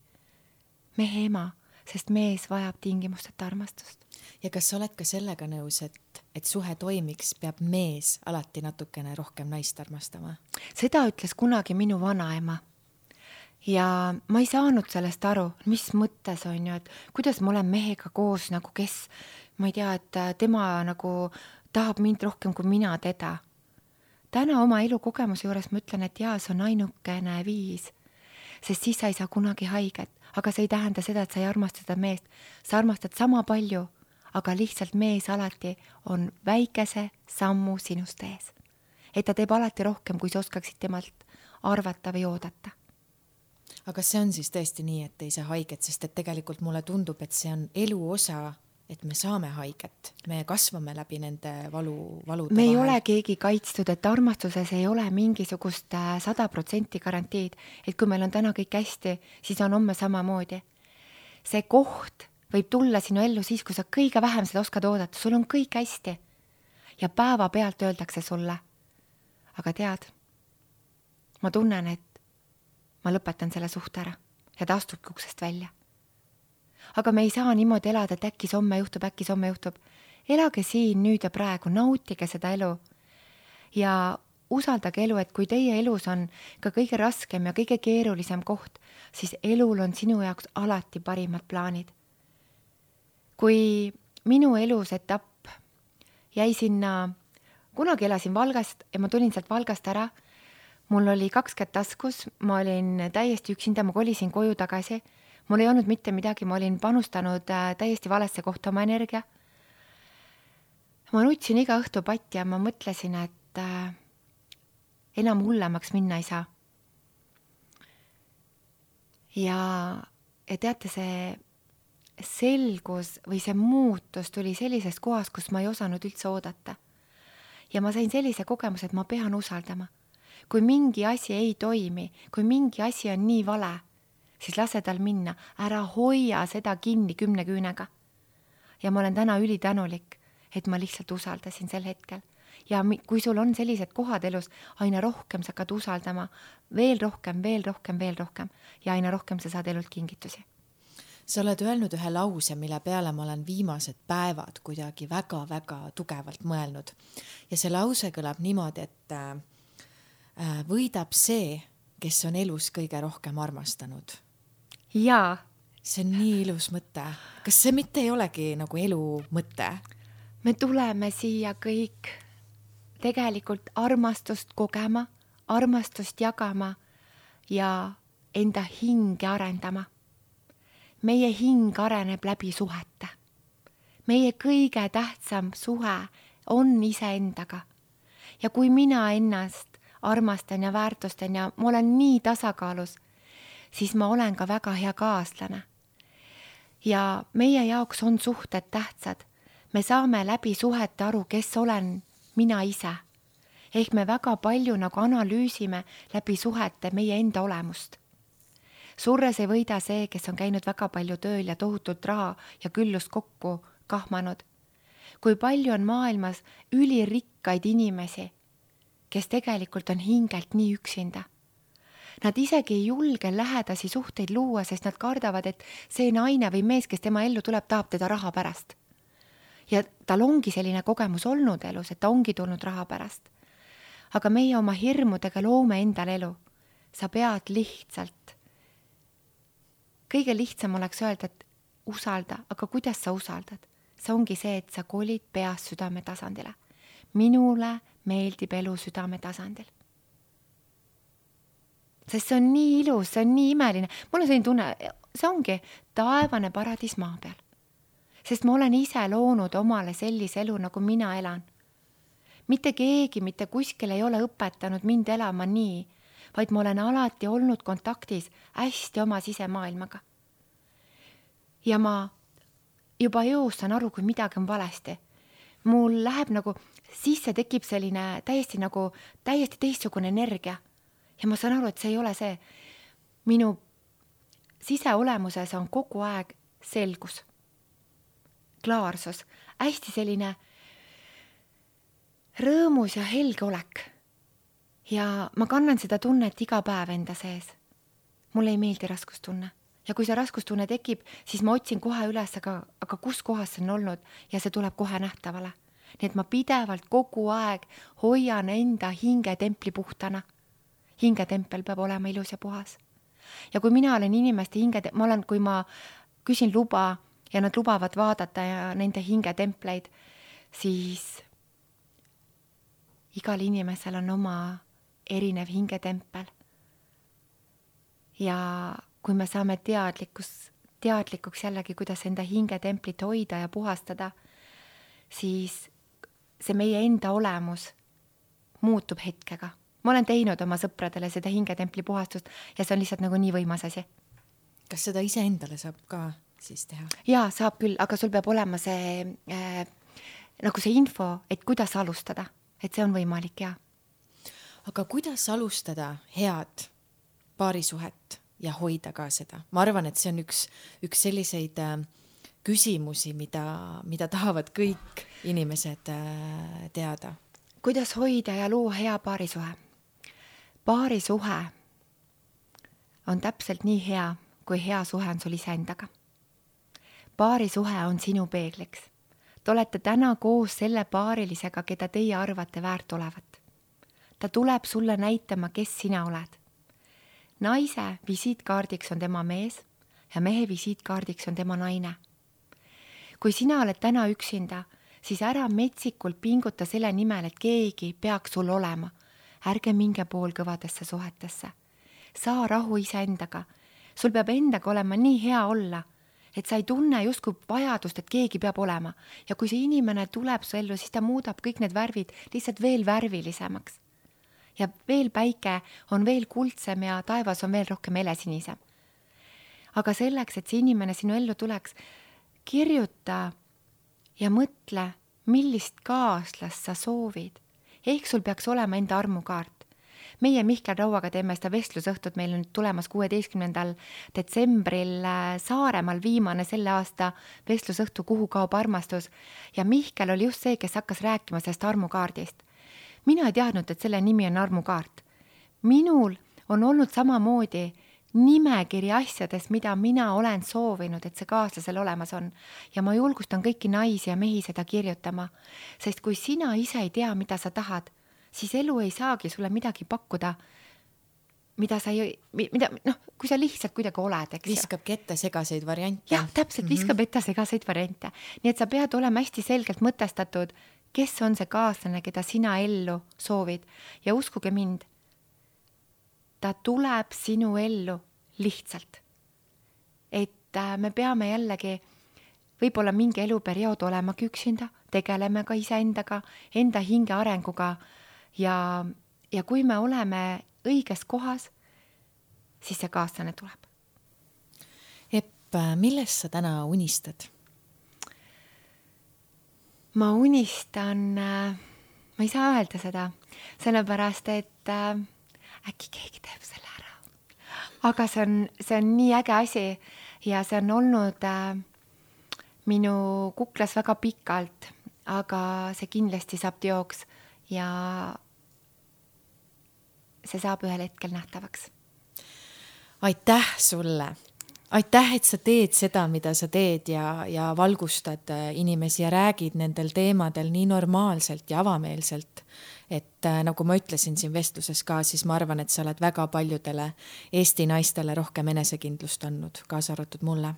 mehe ema, sest mees vajab tingimusteta armastust. Ja kas sa oled ka sellega nõus, et suhe toimiks, peab mees alati natukene rohkem naist armastama? Seda ütles kunagi minu vanaema. Ja ma ei saanud sellest aru, mis mõttes on ju, et kuidas ma olen mehega koos nagu kes, ma ei tea, et tema nagu tahab mind rohkem kui mina teda. Täna oma elukogemuse juures ma ütlen, et jaa, see on ainukene viis, sest siis sa ei saa kunagi haiget, aga see ei tähenda seda, et sa ei armasta seda meest. Sa armastad sama palju, aga lihtsalt mees alati on väikese sammu sinust ees. Et ta teeb alati rohkem, kui sa oskaksid temalt arvata või oodata. Aga see on siis tõesti nii, et ei saa haiget, sest et tegelikult mulle tundub, et see on elu osa, et me saame haiget. Me kasvame läbi nende valude me ei ole keegi kaitstud, et armastuses ei ole mingisugust 100% garantiid, et kui meil on täna kõik hästi, siis on homme samamoodi. See koht võib tulla sinu ellu siis, kui sa kõige vähem seda oskad oodata. Sul on kõik hästi. Ja päeva pealt öeldakse sulle. Aga tead, ma tunnen, et ma lõpetan selle suhte ära ja ta astubki uksest välja. Aga me ei saa niimoodi elada, et äkki homme juhtub. Elage siin nüüd ja praegu, nautige seda elu ja usaldage elu, et kui teie elus on ka kõige raskem ja kõige keerulisem koht, siis elul on sinu jaoks alati parimad plaanid. Kui minu elus etapp jäi sinna, kunagi elasin Valgast ja ma tulin sealt Valgast ära, mul oli 2 kätt taskus, ma olin täiesti üksinda, ma kolisin koju tagasi, mul ei olnud mitte midagi, ma olin panustanud täiesti valesse kohta oma energia. Ma nutsin iga õhtu patti ja ma mõtlesin, et enam hullemaks minna ei saa. Ja teate, see selgus või see muutus tuli sellisest kohast, kus ma ei osanud üldse oodata. Ja ma sain sellise kogemuse, et ma pean usaldama. Kui mingi asi ei toimi, kui mingi asi on nii vale, siis lase tal minna, ära hoia seda kinni 10 küünega. Ja ma olen täna ülitänulik, et ma lihtsalt usaldasin sel hetkel. Ja kui sul on sellised kohad elus, aina rohkem sa hakkad usaldama, veel rohkem ja aina rohkem sa saad elult kingitusi. sa oled öelnud ühe lause, mille peale ma olen viimased päevad kuidagi väga-väga tugevalt mõelnud. Ja see lause kõlab niimoodi, et võidab see, kes on elus kõige rohkem armastanud. Jaa. See on nii ilus mõte. Kas see mitte ei olegi nagu elu mõte? Me tuleme siia kõik tegelikult armastust kogema, armastust jagama ja enda hinge arendama. Meie hing areneb läbi suhete. Meie kõige tähtsam suhe on iseendaga. Ja kui mina ennast armastan ja väärtustan ja ma olen nii tasakaalus, siis ma olen ka väga hea kaaslane. Ja meie jaoks on suhted tähtsad. Me saame läbi suhete aru, kes olen mina ise. Ehk me väga palju nagu analüüsime läbi suhete meie enda olemust. Surres ei võida see, kes on käinud väga palju tööl ja tohutult raha ja küllust kokku kahmanud. Kui palju on maailmas ülirikkaid inimesi, kes tegelikult on hingelt nii üksinda. Nad isegi ei julge lähedasi suhteid luua, sest nad kardavad, et see naine või mees, kes tema ellu tuleb, tahab teda raha pärast. Ja tal ongi selline kogemus olnud elus, et ta ongi tulnud raha pärast. Aga meie oma hirmudega loome endal elu. Sa pead lihtsalt. Kõige lihtsam oleks öelda, et usalda, aga kuidas sa usaldad? See ongi see, et sa kolid peast südame tasandile. Minule meeldib elu südame tasandil. Sest see on nii ilus, see on nii imeline. Mul on selline tunne, see ongi taevane paradiis maa peal. Sest ma olen ise loonud omale sellise elu, nagu mina elan. Mitte keegi, mitte kuskil ei ole õpetanud mind elama nii, vaid ma olen alati olnud kontaktis hästi oma sisemaailmaga. Ja ma juba jõustan aru, kui midagi on valesti. Mul läheb nagu, sisse tekib selline täiesti teistsugune energia. Ja ma saan aru, et see ei ole see. Minu siseolemuses on kogu aeg selgus, klaarsus, hästi selline rõõmus ja helge olek. Ja ma kannan seda tunnet iga päev enda sees. Mulle ei meeldi raskustunne. Ja kui see raskustunne tekib, siis ma otsin kohe üles, aga kus kohas see on olnud ja see tuleb kohe nähtavale. Nii et ma pidevalt kogu aeg hoian enda hingetempli puhtana. Hingetempel peab olema ilus ja puhas. Ja kui mina olen inimeste kui ma küsin luba ja nad lubavad vaadata ja nende hingetempleid, siis igal inimesel on oma erinev hingetempel. Ja kui me saame teadlikuks jällegi, kuidas enda hingetemplit hoida ja puhastada, siis see meie enda olemus muutub hetkega. Ma olen teinud oma sõpradele seda hingetempli puhastust ja see on lihtsalt nagu nii võimas asi. Kas seda ise endale saab ka siis teha? Jaa, saab küll, aga sul peab olema see, nagu see info, et kuidas alustada, et see on võimalik, jaa. Aga kuidas alustada head paarisuhet ja hoida ka seda? Ma arvan, et see on üks selliseid küsimusi, mida tahavad kõik inimesed teada. Kuidas hoida ja luua hea paarisuhe? Paarisuhe on täpselt nii hea, kui hea suhe on sul iseendaga. Paarisuhe on sinu peegliks. Te olete täna koos selle paarilisega, keda teie arvate väärt olevat. Ta tuleb sulle näitama, kes sina oled. Naise visiitkaardiks on tema mees ja mehe visiitkaardiks on tema naine. Kui sina oled täna üksinda, siis ära metsikult pinguta selle nimel, et keegi peaks sul olema. Ärge minge poolkõvadesse suhetesse. Saa rahu iseendaga. Sul peab endaga olema nii hea olla, et sa ei tunne justkui vajadust, et keegi peab olema. Ja kui see inimene tuleb su ellu, siis ta muudab kõik need värvid lihtsalt veel värvilisemaks. Ja veel päike on veel kuldsem ja taevas on veel rohkem helesinisem. Aga selleks, et see inimene sinu ellu tuleks, kirjuta ja mõtle, millist kaaslast sa soovid. Ehk sul peaks olema enda armukaart. Meie Mihkel Rauaga teeme seda vestlusõhtut, meil on tulemas 16. detsembril Saaremaal viimane selle aasta vestlusõhtu, kuhu kaob armastus. Ja Mihkel oli just see, kes hakkas rääkima sellest armukaardist. Mina ei teadnud, et selle nimi on armukaart. Minul on olnud samamoodi nimekiri asjadest, mida mina olen soovinud, et see kaaslasel olemas on. Ja ma julgustan kõiki naisi ja mehi seda kirjutama, sest kui sina ise ei tea, mida sa tahad, siis elu ei saagi sulle midagi pakkuda, kui sa lihtsalt kuidagi oled, eks. Viskabki ette segaseid variante. Jah, täpselt, viskab ette segaseid variante. Nii et sa pead olema hästi selgelt mõtestatud, kes on see kaaslane, keda sina ellu soovid. Ja uskuge mind, ta tuleb sinu ellu lihtsalt. Et me peame jällegi võib-olla mingi eluperiood olemagi üksinda, tegeleme ka iseendaga, enda hinge arenguga ja kui me oleme õiges kohas, siis see kaaslane tuleb. Epp, millest sa täna unistad? Ma unistan, ma ei saa öelda seda, sellepärast, et äkki keegi teeb selle ära. Aga see on nii äge asi ja see on olnud minu kuklas väga pikalt, aga see kindlasti saab teoks ja see saab ühel hetkel nähtavaks. Aitäh sulle! Aitäh, et sa teed seda, mida sa teed ja valgustad inimesi ja räägid nendel teemadel nii normaalselt ja avameelselt. Et nagu ma ütlesin siin vestluses ka, siis ma arvan, et sa oled väga paljudele Eesti naistele rohkem enesekindlust andnud, kaasa arvatud mulle.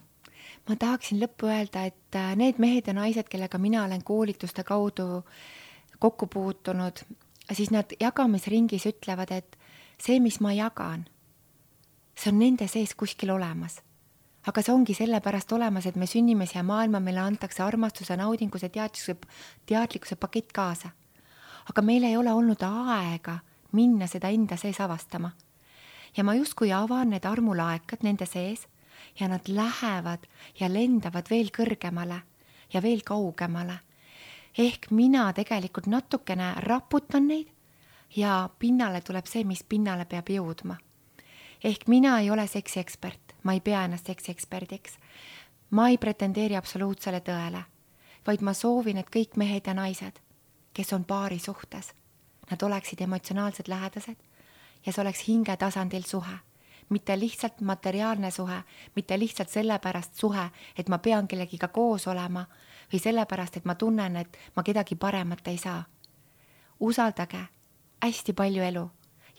Ma tahaksin lõppu öelda, et need mehed ja naised, kellega mina olen koolituste kaudu kokku puutunud, siis nad jagamisringis ütlevad, et see, mis ma jagan, see on nende sees kuskil olemas. Aga see ongi sellepärast olemas, et me sünnime siia maailma, meile antakse armastuse, naudinguse, teadlikkuse pakett kaasa. Aga meil ei ole olnud aega minna seda enda sees avastama. Ja ma justkui avan need armulaekad nende sees ja nad lähevad ja lendavad veel kõrgemale ja veel kaugemale. Ehk mina tegelikult natukene raputan neid ja pinnale tuleb see, mis pinnale peab jõudma. Ehk mina ei ole seksiekspert, ma ei pea ennast seksieksperdiks. Ma ei pretendeeri absoluutsele tõele, vaid ma soovin, et kõik mehed ja naised, kes on paari suhtes, nad oleksid emotsionaalsed lähedased ja see oleks hinge tasandil suhe. Mitte lihtsalt materiaalne suhe, mitte lihtsalt sellepärast suhe, et ma pean kellegiga koos olema või sellepärast, et ma tunnen, et ma kedagi paremat ei saa. Usaldage hästi palju elu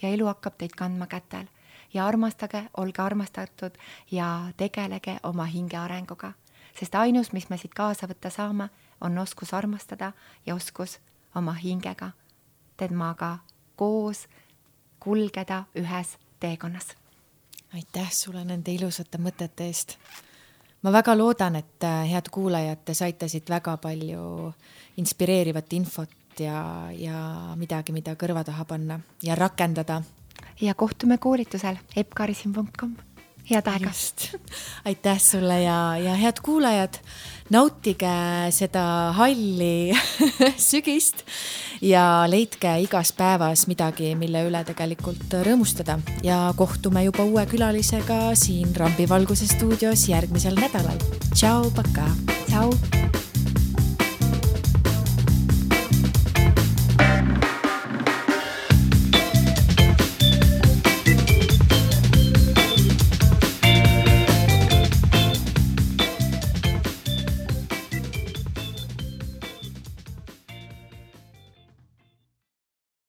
ja elu hakkab teid kandma kätel ja armastage, olge armastatud ja tegelege oma hinge arenguga. Sest ainus, mis me siit kaasa võtta saame, on oskus armastada ja oskus oma hingega temaga koos kulgeda ühes teekonnas. Aitäh sulle nende ilusate mõtete eest. Ma väga loodan, et head kuulajad, te saite siit väga palju inspireerivat infot ja midagi, mida kõrva taha panna ja rakendada. Ja kohtume koolitusel epkarisin.com. Head aega. Aitäh sulle ja head kuulajad, nautige seda halli sügist ja leidke igas päevas midagi, mille üle tegelikult rõõmustada ja kohtume juba uue külalisega siin Rambivalguse stuudios järgmisel nädalal. Tšau, paka! Tšau!